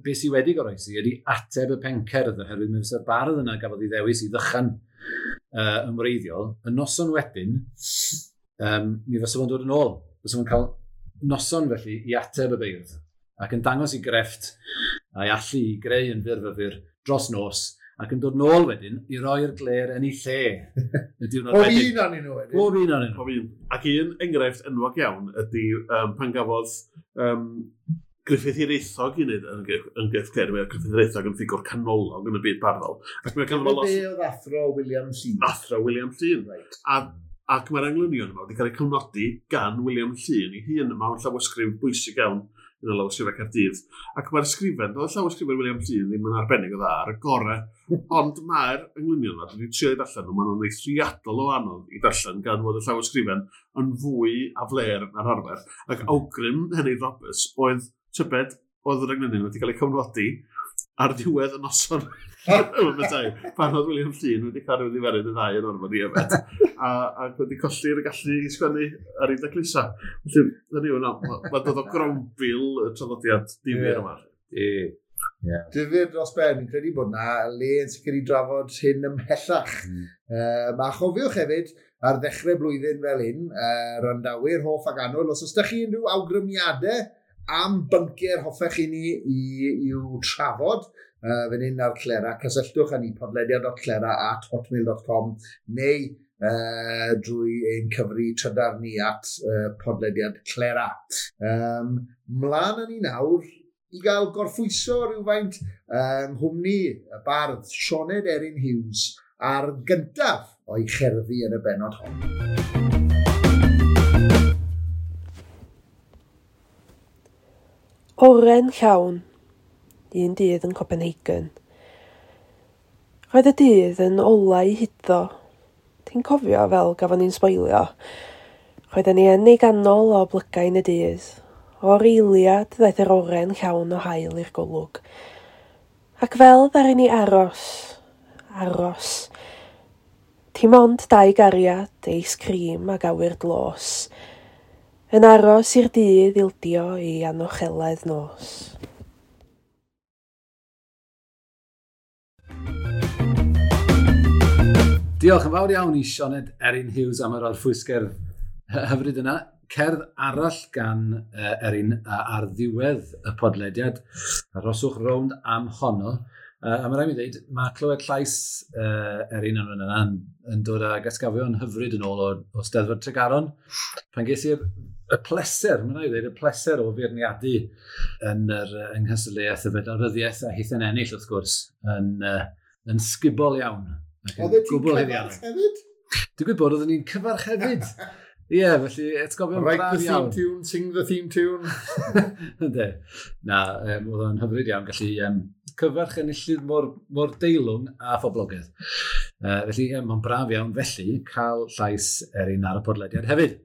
Be sydd wedi goroesi ydy ateb y pencerdd, oherwydd mi fysa'r bardd yna gafodd ei ddewis i ddychan yn wreiddiol. Y noson wedyn, mi fysa fo'n dod yn ôl. Fysa fo'n cael noson felly i ateb y beirdd ac yn dangos i grefft a'i allu i greu yn fyrfyfyr dros nos ac yn dod nôl wedyn i roi'r gler yn ei lle. Y diwrnod wedyn. Pob un o'n nhw wedyn. Pob un o'n nhw. Pob un. Ac un enghraifft enwog iawn ydy pan gafodd Gruffydd Hiraethog i wneud yn Gruff Cler. Mae Gruffydd Hiraethog yn ffigwr canolog yn y byd barddol. Ac mae ganddo lot... Be oedd athro William Llŷn? Athro William Llŷn. Right. Ac mae'r englynion yma wedi cael eu cofnodi gan William Llŷn ei hun. Mae o'n llawysgrif bwysig iawn yn y lawysgrifau Caerdydd. Ac mae'r sgrifen, doedd y llawysgrifau William Llŷn ddim yn arbennig o dda ar y gorau, ond mae'r englynion yma, dwi wedi trio i darllen nhw, maen nhw'n eithriadol o anodd i darllen gan fod y llawysgrifen yn fwy aflêr na'r arfer. Ac awgrym Henry Roberts oedd tybed oedd yr englynion wedi cael eu cofnodi ar ddiwedd y noson pan oedd William Llŷn wedi cael ei ddiferyn y ddau yn orfod i yfed ac wedi colli'r gallu i sgwennu ar ei daclusa. Felly, dyna yw, mae'n dod o grombil y traddodiad difyr yma. Yeah. Difyr dros ben, fi'n credu bod na le yn sicr i drafod hyn ymhellach. Mae chofiwch hefyd, ar ddechrau blwyddyn fel hyn, randawyr hoff ac annwyl, os oes da chi unrhyw awgrymiadau am bynciau hoffech chi ni i'w trafod, fan hyn ar Clera, cysylltwch â ni podlediad.clera@hotmail.com neu drwy ein cyfri trydar ni at podlediad Clera. Mlaen â ni nawr i gael gorffwyso rhywfaint yng nghwmni y bardd Sioned Erin Hughes ar gyntaf o'i cherddi yn y bennod hon. Oren llawn, un dydd yn Copenhagen. Roedd y dydd yn olau huddo. Ti'n cofio fel gafon ni'n sboilio. Roedden ni yn ei ganol o blygain y dydd. O'r eiliad ddaeth yr oren llawn o haul i'r golwg. Ac fel ddaru ni aros, aros. Dim ond dau gariad, eis cream ac awyr dlos. Yn aros i'r dydd ildio i anocheledd nos. Diolch yn fawr iawn i Sioned Erin Hughes am yr orffwysgerdd hyfryd yna. Cerdd arall gan Erin ar ddiwedd y podlediad. Arhoswch rownd am honno. A mae rhaid mi ddweud, mae clywed llais Erin yn yna yn dod ag atgofion hyfryd yn ôl o Steddfod Tregaron. Pan ges i'r y pleser, mae'n rhaid i ddweud, y pleser o feirniadu yn yr yng nghystadleuaeth y Fedal Ryddiaeth a hithen ennill wrth gwrs yn sgubol iawn. Oedd ti'n cyfarch hefyd? Digwydd bod oedden ni'n cyfarch hefyd. Ie, felly atgofion braf iawn. Write the theme tune, sing the theme tune. Ynde. Na, oedd o'n hyfryd iawn gallu cyfarch enillydd mor deilwng a phoblogaidd. Felly, mae'n braf iawn felly cael llais Erin ar y podlediad hefyd.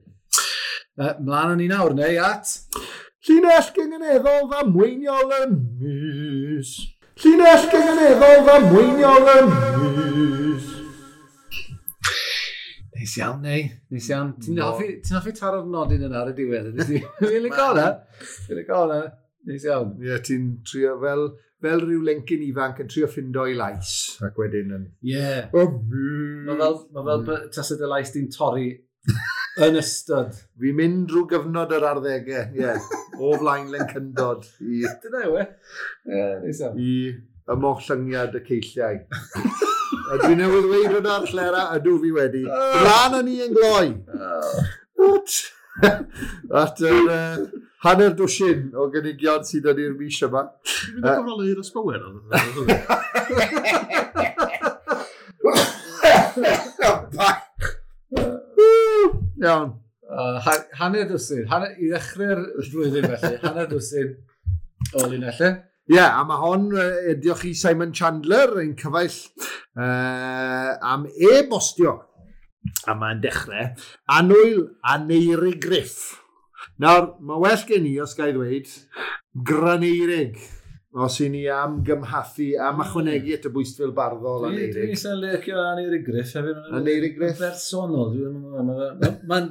Mlaen â ni nawr, neu at... Llinell gynganeddol ddamweiniol y mis. Llinell gynganeddol ddamweiniol y mis. Neis iawn, neu. Neis iawn. Ti'n hoffi taro'r nodyn yna ar y diwedd? Fi'n licio hwnna. Fi'n licio hwnna. Neis iawn. Ie, ti'n trio fel rhyw lencyn ifanc yn trio ffindo i lais ac wedyn yn... Ie. Mae fel tasau dy lais di'n torri yn ystod. Fi'n mynd drwy gyfnod yr arddegau, ie. O flaen lencyndod i... Dyna yw e. Ie, neis iawn. I ymollyngiad y ceilliau. A dwi newydd ddweud hwnna ar Clera, ydw fi wedi. Mlaen â ni yn gloi. At yr hanner dwsin o gynigion sydd yn i'r mis yma. Dwi'n mynd i gyfrolau i'r ysbywer. Iawn. Hanner dwsin. I ddechrau'r flwyddyn felly. Hanner dwsin o linellau. Ie, yeah, a mae hon, diolch i Simon Chandler, ein cyfaill, am e-bostio. A mae'n dechrau, Annwyl Aneurig Griff. Nawr, mae well gen i, os ga i ddweud, Graneirig. Os i ni am gymhathu, am ychwanegu at y bwystfil barddol Aneirig. Dwi'n eitha licio Aneirig Griff hefyd. Aneirig Griff? Bersonol, dwi'n meddwl. Mae'n...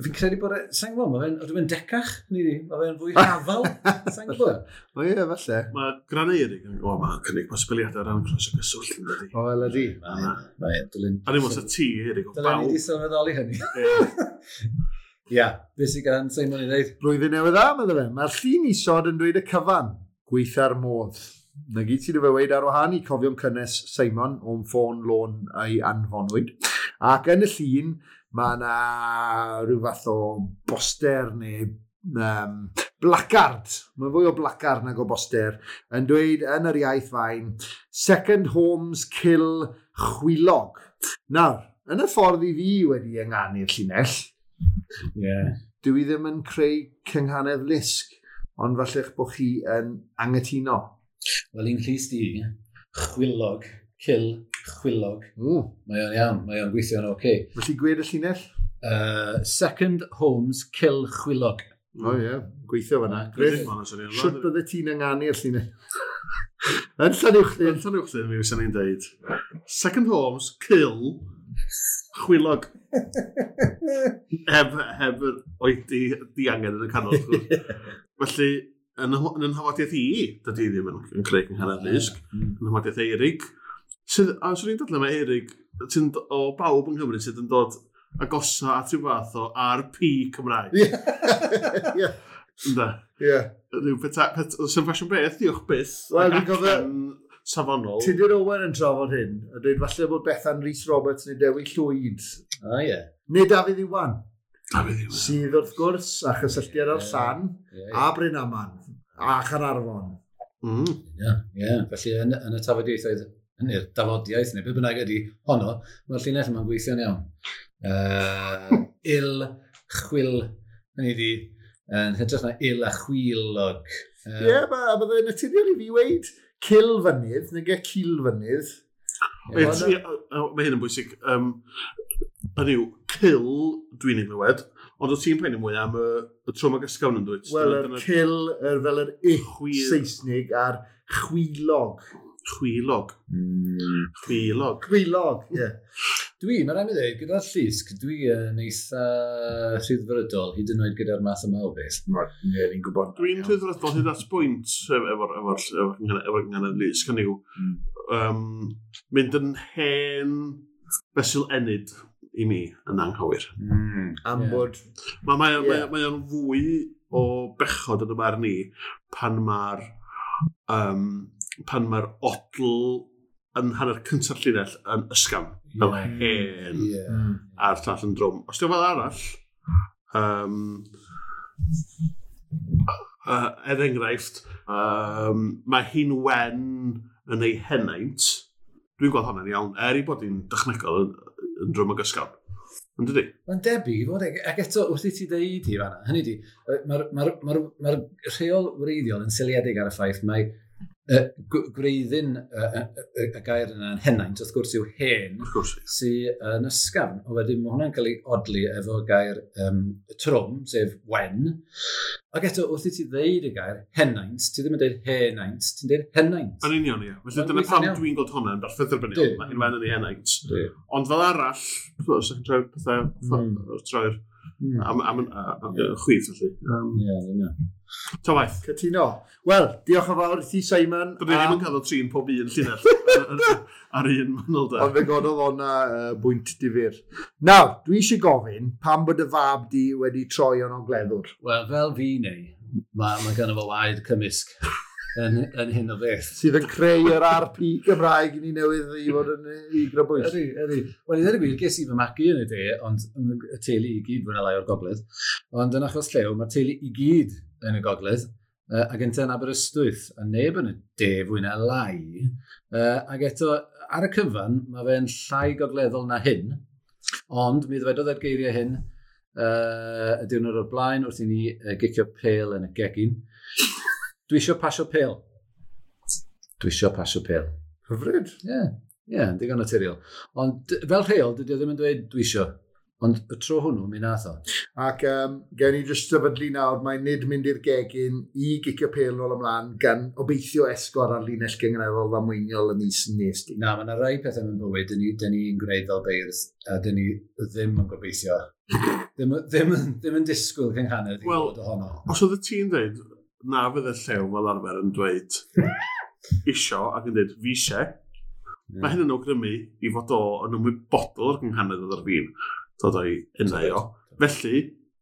Fi'n credu bod... Sa'n gwybod, mae fe'n... Ydw fe'n decach? Ni di? Mae fe'n fwy hafal? Sa'n gwybod? O ie, falle. Mae Gran Eirig yn... O, mae'n cynnig posibiliadau ran croes o gyswllt yn dydi. O, wel ydi. Mae'n dilyn... A ddim os y ti, Eirig, o bawb. Dylen ni di sylweddoli hynny. Ia, beth sydd gan Simon i ddeud? Blwyddyn newydd dda, meddwl fe. Mae'r llun isod yn dweud y cyfan. Gweitha'r modd. Na gyd sydd efo weid ar wahân i cofion cynnes Simon o'n ffôn lôn a'i anfonwyd. Ac yn y llun, mae yna rhyw fath o boster neu placard. Mae'n fwy o placard nag o boster. Yn dweud yn yr iaith fain, Second Homes Kill Chwilog. Nawr, yn y ffordd i fi wedi ynganu'r llinell, yeah. Dwi ddim yn creu cynghanedd lusg, ond falle'ch bod chi yn angytuno. Wel, un llys di, chwilog, kill, chwilog. Mae o'n iawn, mae o'n gweithio'n oce. Okay. Felly gwed y llinell? Second Homes, kill, chwilog. O ie, yeah, gweithio fyna. Griff, siwt bydde ti'n ynganu'r llinell? Yn Llanuwchllyn. Yn Llanuwchllyn, mi fysa ni'n deud. Second Homes, kill, chwilog. Heb yr oedi diangen yn y canol. Felly, yn yn nhafodiaeth i, dydy ddim yn creu cynghanedd lusg, yn nhafodiaeth Eirig, sydd, a swn i'n dadlau mae Eirig, sy'n o bawb yng Nghymru sydd yn dod agosa at rhyw fath o RP Cymraeg. Ie. Ynde? Ie. Rhyw peta, sy'n ffasiwn beth, diolch byth. Wel, dwi'n cofio safonol. Tudur Owen yn trafod hyn, a dweud falle bod Bethan Rhys Roberts neu Dewi Llwyd. Ah, ie. Yeah. Neu Dafydd Iwan. Dafydd Iwan. Sydd wrth gwrs a chysylltiad ar Llan, a Bryn Aman, a Chaernarfon. Ie, ie. Felly yn y tafodieithoedd, yn yr dafodiaeth, neu beth bynnag ydy honno, mae'r llinell yma'n gweithio'n iawn. Il, chwil, hynny ydi, yn hytrach na il a chwilog. Ie, yeah, byddai'n naturiol i fi weid cil fynydd, neu ge cil fynydd. Mae hyn yn bwysig. Hynny yw, cil dwi'n ei glywed, ond o ti'n poeni mwy am y trwm ag ysgafn yn dwyt? Wel, yr cil, fel yr ich Saesnig a'r chwilog. Chwilog. Chwilog. Chwilog, ie. Dwi, mae rhaid mi ddweud, gyda'r llusg, dwi yn eitha rhyddfrydol, hyd yn oed gyda'r math yma o beth. Ie, ni'n gwybod. Dwi'n rhyddfrydol hyd at bwynt efo'r gynghanedd lusg, hynny yw, mynd yn hen fesul ennyd i mi yn anghywir. Am bod... Mae o'n fwy o bechod yn y marn i pan mae'r odl yn hanner cyntaf llinell yn ysgafn, fel hen, a'r llall yn drwm. Os di'n fel arall, er enghraifft, mae hi'n wen yn ei henaint. Dwi'n gweld hwnna'n iawn, er ei bod hi'n dechnegol yn drwm ag ysgafn. Yn dydi? Mae'n debyg i fod, ac eto wrth i ti ddeud hi fan'na, hynny di, mae'r rheol wreiddiol yn seiliedig ar y ffaith mae gwreiddyn y gair yna yn henaint, wrth gwrs yw hen, sydd yn ysgafn. O wedyn mae hwnna'n cael ei odli efo gair trwm, sef wen. Ac eto, wrth i ti ddeud y gair henaint, ti ddim yn deud henaint, ti'n deud henaint. Yn union, ie. Felly dyna pam dwi'n gweld hwnna'n berffaith dderbyniol. Mae hi'n wen yn ei henaint. Ond fel arall, os ydych chi'n troi'r pethau, troi'r am chwith, felly. Ie, yn union. Ta waith. Cytuno. Wel, diolch yn fawr i ti, Simon. Dyn ni ddim yn cael o trin pob un llinell ar un manylder. Ond fe gododd o'na bwynt difyr. Nawr, dwi eisiau gofyn pam bod y fab di wedi troi o'n ogleddwr? Wel, fel fi neu, mae gynno fo waed cymysg yn hyn o beth. Sydd yn creu yr RP Gymraeg i ni newydd i fod yn i grybwyll. Ydy, ydy. Wel, i ddweud y gwir, ges i fy magu yn y de, ond y teulu i gyd fwy na lai o'r gogledd. Ond yn achos Llew, mae'r teulu i gyd yn y gogledd, ac ynte yn Aberystwyth, a neb yn y de fwy na lai. Ac eto, ar y cyfan, mae fe'n llai gogleddol na hyn, ond mi ddwedodd e'r geiriau hyn y diwrnod o'r blaen wrth i ni gicio pêl yn y gegin. Dwi isio pasio pêl. Dwi isio pasio pêl. Hyfryd. Ie, yeah, digon naturiol. Ond fel rheol, dydy o ddim yn dweud dwi isio. Ond y tro hwnnw, mi nath o. Ac gen i jyst sefydlu nawr, mae nid mynd i'r gegin i gicio pêl nôl ymlaen gan obeithio esgor ar linell gynganeddol ddamweiniol y mis nes di. Na, mae yna rai pethau mewn bywyd, dyn ni'n gwneud fel beirdd, a dyn ni ddim yn gobeithio. Ddim yn disgwyl cynghanedd i Wel, fod ohono. Os oedd y ti'n dweud, na fydd y llew fel arfer yn dweud isio ac yn dweud fi eisiau, mae hyn yn awgrymu i fod o yn ymwybodol o'r gynghanedd oedd ar fin dod o'i enau o. Felly,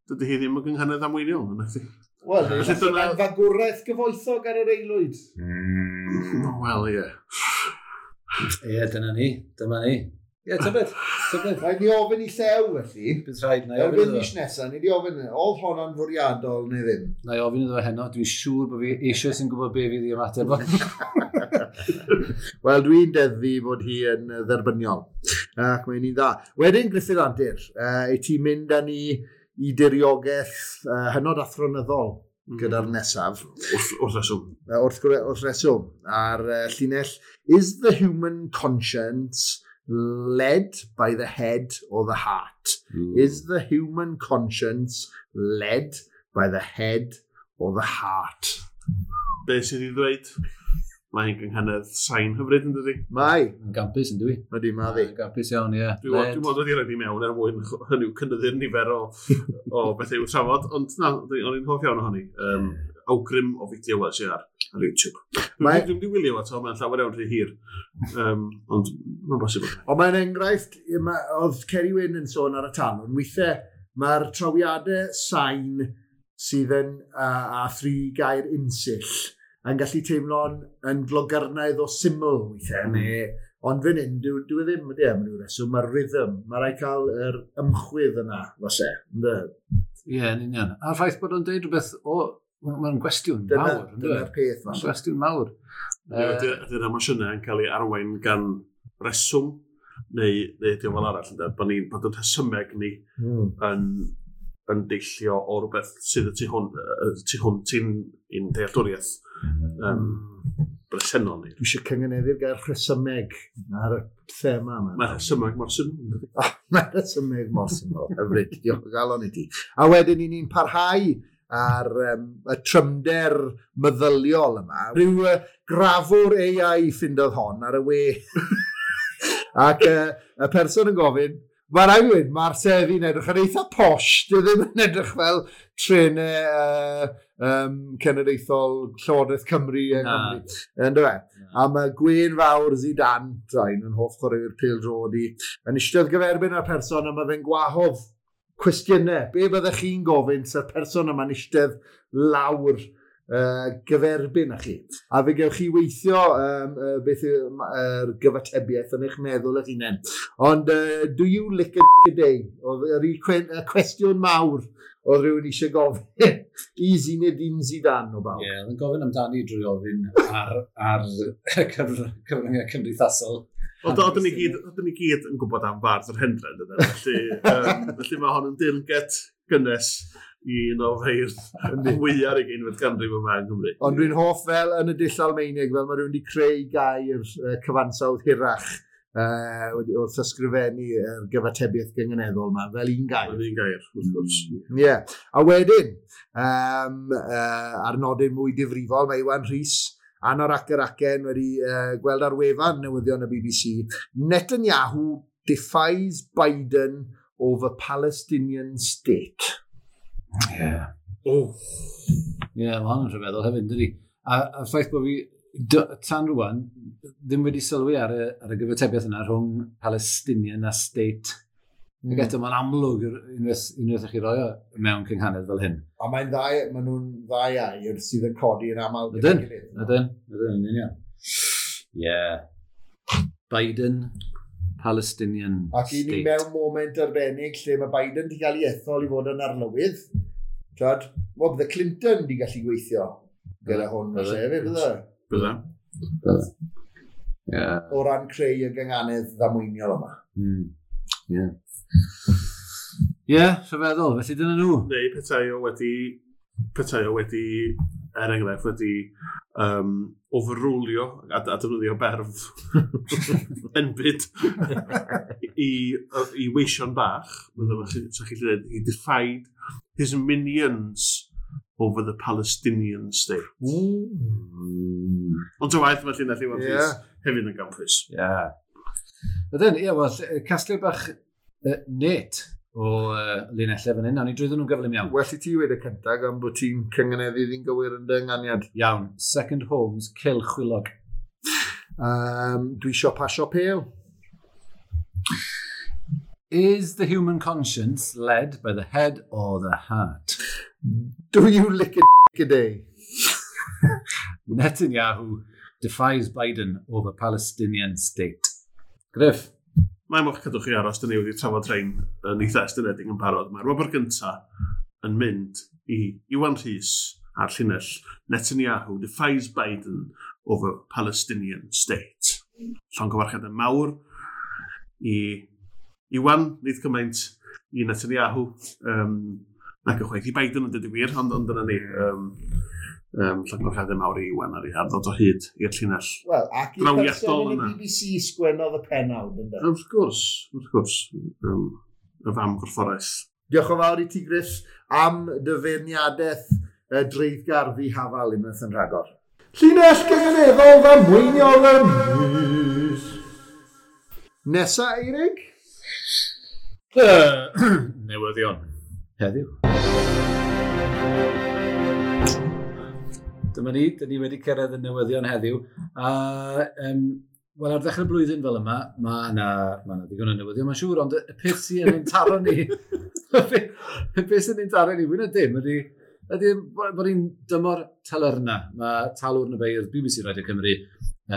dydy hi ddim yn gynghanedd amweiniol, yna chdi. Wel, Felly dyna- fagwraeth gyfoethog ar yr aelwyd. Wel, ie. Ie, dyna ni. Dyma ni. Ie, tybed. Tybed. Rhaid ni ofyn i Llew, felly. Bydd rhaid, na i ofyn Erbyn iddo mis fo. nesaf, ni di ofyn, oedd honno'n fwriadol neu ddim? Na i ofyn iddo fo heno. Dwi'n siŵr bod fi eisoes yn gwybod be fydd i ymateb o. Wel, dwi'n deddfu bod hi yn dderbyniol. Ac mae'n un dda. Wedyn, Gruffydd Antur, i ti mynd â ni i diriogaeth hynod athronyddol gyda'r nesaf. Wrth reswm. Wrth reswm. Ar llinell, is the human conscience led by the head or the heart? Is the human conscience led by the head or the heart? Be sydd i ddweud? Mae hi'n gynghanedd sain hyfryd yn dydi? Mae. Yn gampus yn dwi. Ydy, mae ddi. Yn gampus iawn, ie. Dwi'n Led. dwi'n meddwl wedi rhaid i mewn er mwyn hynny yw cynyddu'r nifer o bethau i'w trafod, ond na, o'n i'n hoff iawn ohoni. Awgrym o fideo wels i ar YouTube. Dwi'n wedi wylio eto, mae'n llawer iawn rhy hir. Ond mae'n bosib. Ond mae'n enghraifft, oedd Ceri Wyn yn sôn ar y talwn, weithiau mae'r trawiadau sain sydd yn a thri gair unsill yn gallu teimlo'n yn glogyrnaidd o syml weithiau. Neu, ond fan hyn, dwi ddim, ydy, am ryw reswm, mae'r rhythm, mae rhaid cael yr ymchwydd yna, falle. Ynde? Ie, yn union. A'r ffaith bod o'n deud rhywbeth o... Mae'n gwestiwn mawr. yndyw e? Dyna'r peth, Mae'n falle. gwestiwn mawr. Ydy'r emosiynau yn cael ei arwain gan reswm, neu ydy o fel arall, ynde? Bod ni'n bod yn rhesymeg ni yn deillio o rhywbeth sydd y tu hwnt i'n dealltwriaeth bresennol ni. Dwi eisiau cyngeneddu'r gair rhesymeg ar y thema yma. Mae rhesymeg mor syml. yndydi? Mae rhesymeg mor syml. Hyfryd, diolch o galon i ti. A wedyn i ni'n parhau ar y trymder meddyliol yma. Rhyw grafwr AI ffindodd hon ar y we. Ac y person yn gofyn, mae'n rhaid i weud, mae'r seddi'n edrych yn eitha posh, dwi ddim yn edrych fel trenau cenedlaethol Llywodraeth Cymru yng Nghymru. Yndyfe? A mae Gwyn Fawr Zidane, draen yn hoff chwaraewyr pêl-droed i, yn eistedd gyferbyn â'r person a mae fe'n gwahodd cwestiynau. Be byddech chi'n gofyn sa'r person yma'n eistedd lawr gyferbyn â chi? A fe gewch chi weithio beth yw'r gyfatebiaeth yn eich meddwl eich hunain. Ond do you lick a dick a day? Oedd yr un cwestiwn mawr oedd rhywun eisiau gofyn i Zinedine Zidane o bawb. Ie, oedd yn gofyn amdani drwy ofyn ar cyfryngau cymdeithasol. Ond oedden ni gyd yn gwybod am fardd yr Hendre, yndyden? Felly mae hon yn dirnged gynnes i un o feirdd mwyaf ugeinfed ganrif yma yng Nghymru. Ond dwi'n hoff fel yn y dull Almaenig, fel mae rhywun wedi creu gair cyfansawdd hirach wrth ysgrifennu yr gyfatebiaeth gynganeddol yma, fel un gair. Fel un gair, wrth gwrs. Ie. A wedyn, ar nodyn mwy difrifol, mae Iwan Rhys Anorak yr Acen wedi gweld ar wefan newyddion y BBC, Netanyahu defies Biden over Palestinian state. Ie. Oh. Ie, mae hwn yn rhyfeddol hefyd, dydi? A'r ffaith bod fi, tan rwan, ddim wedi sylwi ar y gyfatebiaeth yna rhwng Palestinian a state. Ac eto, mae'n amlwg unwaith i chi roi o mewn cynghanedd fel hyn. A mae'n ddau, maen nhw'n ddau air sydd yn codi yn aml. Ydyn, ydyn, yn union. Ie. Biden, Palestinian Ac i ni state. mewn moment arbennig lle mae Biden wedi cael ei ethol i fod yn arlywydd. Twad, wel, bydde Clinton wedi gallu gweithio gyda hwn, felly hefyd, bydde? Bydde. Bydde. Ie. O ran creu y gynganedd ddamweiniol yma. Ie. Ie, rhyfeddol, felly dyna nhw. Neu petai o wedi Petai o wedi, er enghraifft, wedi overrulio a defnyddio berf enbyd i weision bach, sa chi'n dweud, he defied his minions over the Palestinian state. Ond ta waeth, mae llinell Iwan Rhys hefyd yn gampus. Ie. Yeah. Ydyn, ie, wel, casglu bach net o linellau fan hyn. Nawn ni drwyddyn nhw'n gyflym iawn. Well i ti wedi y cyntaf gan bod ti'n cyngeneddu ddi'n gywir yn dy ynganiad. Iawn. Second Homes, Cil Chwilog. Dwi isio pasio pêl. Is the human conscience led by the head or the heart? Do you lick a a day? Netanyahu defies Biden over Palestinian state. Griff. Mae moch cadw chi aros, dyn ni wedi trafod rhain yn eitha estynedig yn barod. Mae'r wobr gynta yn mynd i Iwan Rhys a'r llinell Netanyahu defies Biden over Palestinian state. Llongyfarchiadau mawr i Iwan, nid cymaint i Netanyahu, nac ychwaith i Biden yn dweud y gwir, ond dyna ni. Llongyfarchiadau mawr i Iwan ar ei ddod o hyd i'r llinell. Wel, ac i'r person yn y BBC sgwennodd y pennawd, ynddo? Wrth gwrs, wrth gwrs. Y fam gorfforaeth. Diolch yn fawr i ti, Griff, am dy feirniadaeth dreiddgar ddihafal unwaith yn rhagor. Llinell gynganeddol ddamweiniol y mis. Nesa, Eirig? Newyddion. Heddiw. Dyma ni, dyn ni wedi cyrraedd y newyddion heddiw. A, wel, ar ddechrau blwyddyn fel yma, mae yna ddigon o newyddion, mae'n siŵr, ond y peth sy'n ein taro ni, y peth sy'n ein taro ni, fwy na dim, ydy bod ni'n dymor talyrna. Mae Talwrn y Beirdd BBC Radio Cymru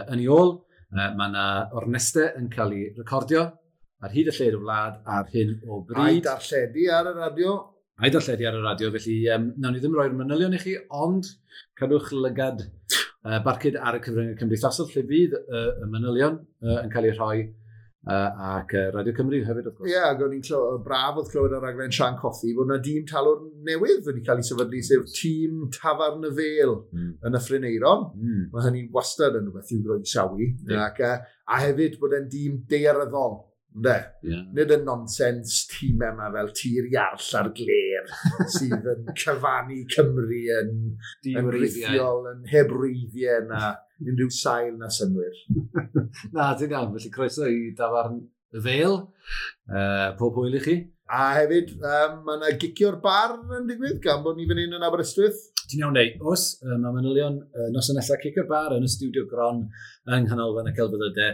yn ei ôl. Mae yna ornestau yn cael ei recordio ar hyd y lled y wlad ar hyn o bryd. A'i darlledu ar y radio. A'i darlledu ar y radio, felly nawn ni ddim roi'r manylion i chi, ond cadwch lygad barcud ar y cyfryngau cymdeithasol, lle fydd y manylion yn cael eu rhoi, ac Radio Cymru hefyd, wrth gwrs. Ie, ac o'n i'n braf oedd clywed ar raglen Sian Cothi bod yna dîm talwrn newydd wedi cael ei sefydlu, sef tîm Tafarn y Fêl yn y Ffryn-Eiron. Mae hynny wastad yn rhywbeth i'w groesawu. Ac, a hefyd bod e'n dîm daearyddol. Ynde? Yeah. Nid y nonsens tîmau yma fel Tir Iarll a'r Gler sydd yn cyfannu Cymru yn rithiol, yn heb wreiddiau na unrhyw sail na synnwyr. Na, ti'n iawn. Felly croeso i Dafarn y Fêl. Pob hwyl i chi. A hefyd, mae yna gicio'r bar yn digwydd gan bod ni fan hyn yn Aberystwyth. Ti'n iawn, neu. Oes, mae manylion noson nesaf cicio'r bar yn y stiwdio gron yng Nghanolfan y Celfyddydau.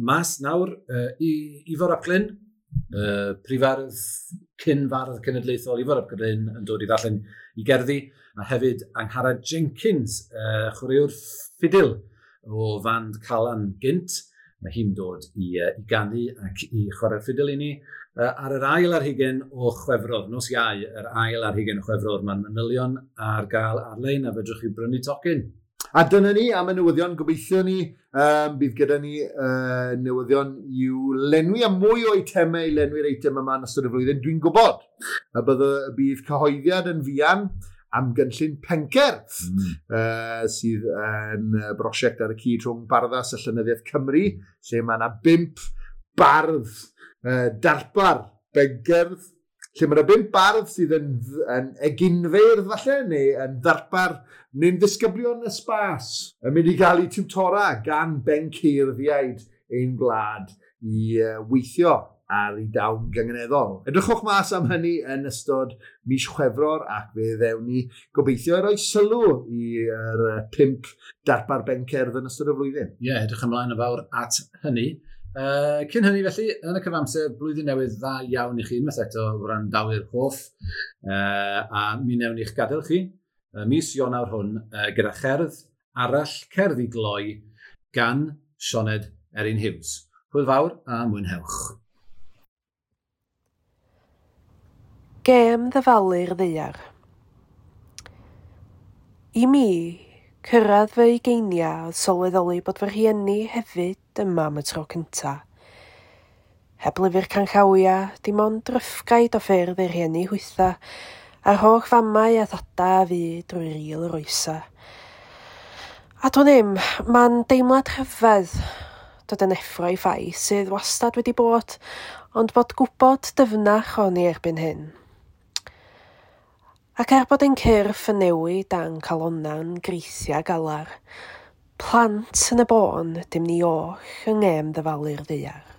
Mas nawr i Ifor ap Glyn, prifardd, cyn-fardd cenedlaethol Ifor ap Glyn yn dod i ddarllen i gerddi, a hefyd Angharad Jenkins, chwaraewr ffidil o fand Calan gynt. Mae hi'n dod i ganu ac i chwarae'r ffidil i ni. Ar yr ail ar hugain o Chwefror, nos Iau, yr ail ar hugain o Chwefror, mae'n manylion ar gael ar-lein a fedrwch chi brynu tocyn. A dyna ni am y newyddion, gobeithio ni, bydd gyda ni newyddion i'w lenwi a mwy o eitemau i lenwi'r eitem yma yn ystod y flwyddyn. Dwi'n gwybod y bydd cyhoeddiad yn fuan am gynllun Pencerdd, sydd yn brosiect ar y cyd rhwng Barddas a Llenyddiaeth Cymru, lle mae yna 5 bardd darpar bencerdd, lle mae yna 5 bardd sydd yn eginfeirdd falle, neu yn ddarpar, neu'n ddisgyblion y sbas, yn mynd i gael eu tiwtora gan benceirddïaid ein gwlad i weithio ar ei dawn gynganeddol. Edrychwch mas am hynny yn ystod mis Chwefror ac fe ddewn ni gobeithio i roi sylw i'r 5 darpar bencerdd yn ystod y flwyddyn. Ie, yeah, edrych ymlaen yn fawr at hynny. Cyn hynny felly, yn y cyfamser, blwyddyn newydd dda iawn i chi unwaith eto wrandawyr hoff, a mi newn ni'ch gadael chi mis Ionawr hwn gyda cherdd arall, cerdd i gloi gan Sioned Erin Hughes. Hwyl fawr a mwynhewch. Gêm ddyfalu'r ddaear. I mi, cyrraedd fy ugeiniau oedd sylweddoli bod fy rhieni hefyd yma am y tro cynta. Heb lyfr canllawiau, dim ond ryffgaid o ffyrdd eu rhieni hwytha, A'r holl famau a thada a fi drwy ril yr oesa. A dwi'n ddim, mae'n deimlad rhyfedd dod yn effro i ffaith sydd wastad wedi bod, ond bod gwybod dyfnach o'n i erbyn hyn. Ac er bod ein cyrff yn newid a'n calona'n greithia galar, plant yn y bôn dim ni oll yng ngêm ddyfalu'r ddaear.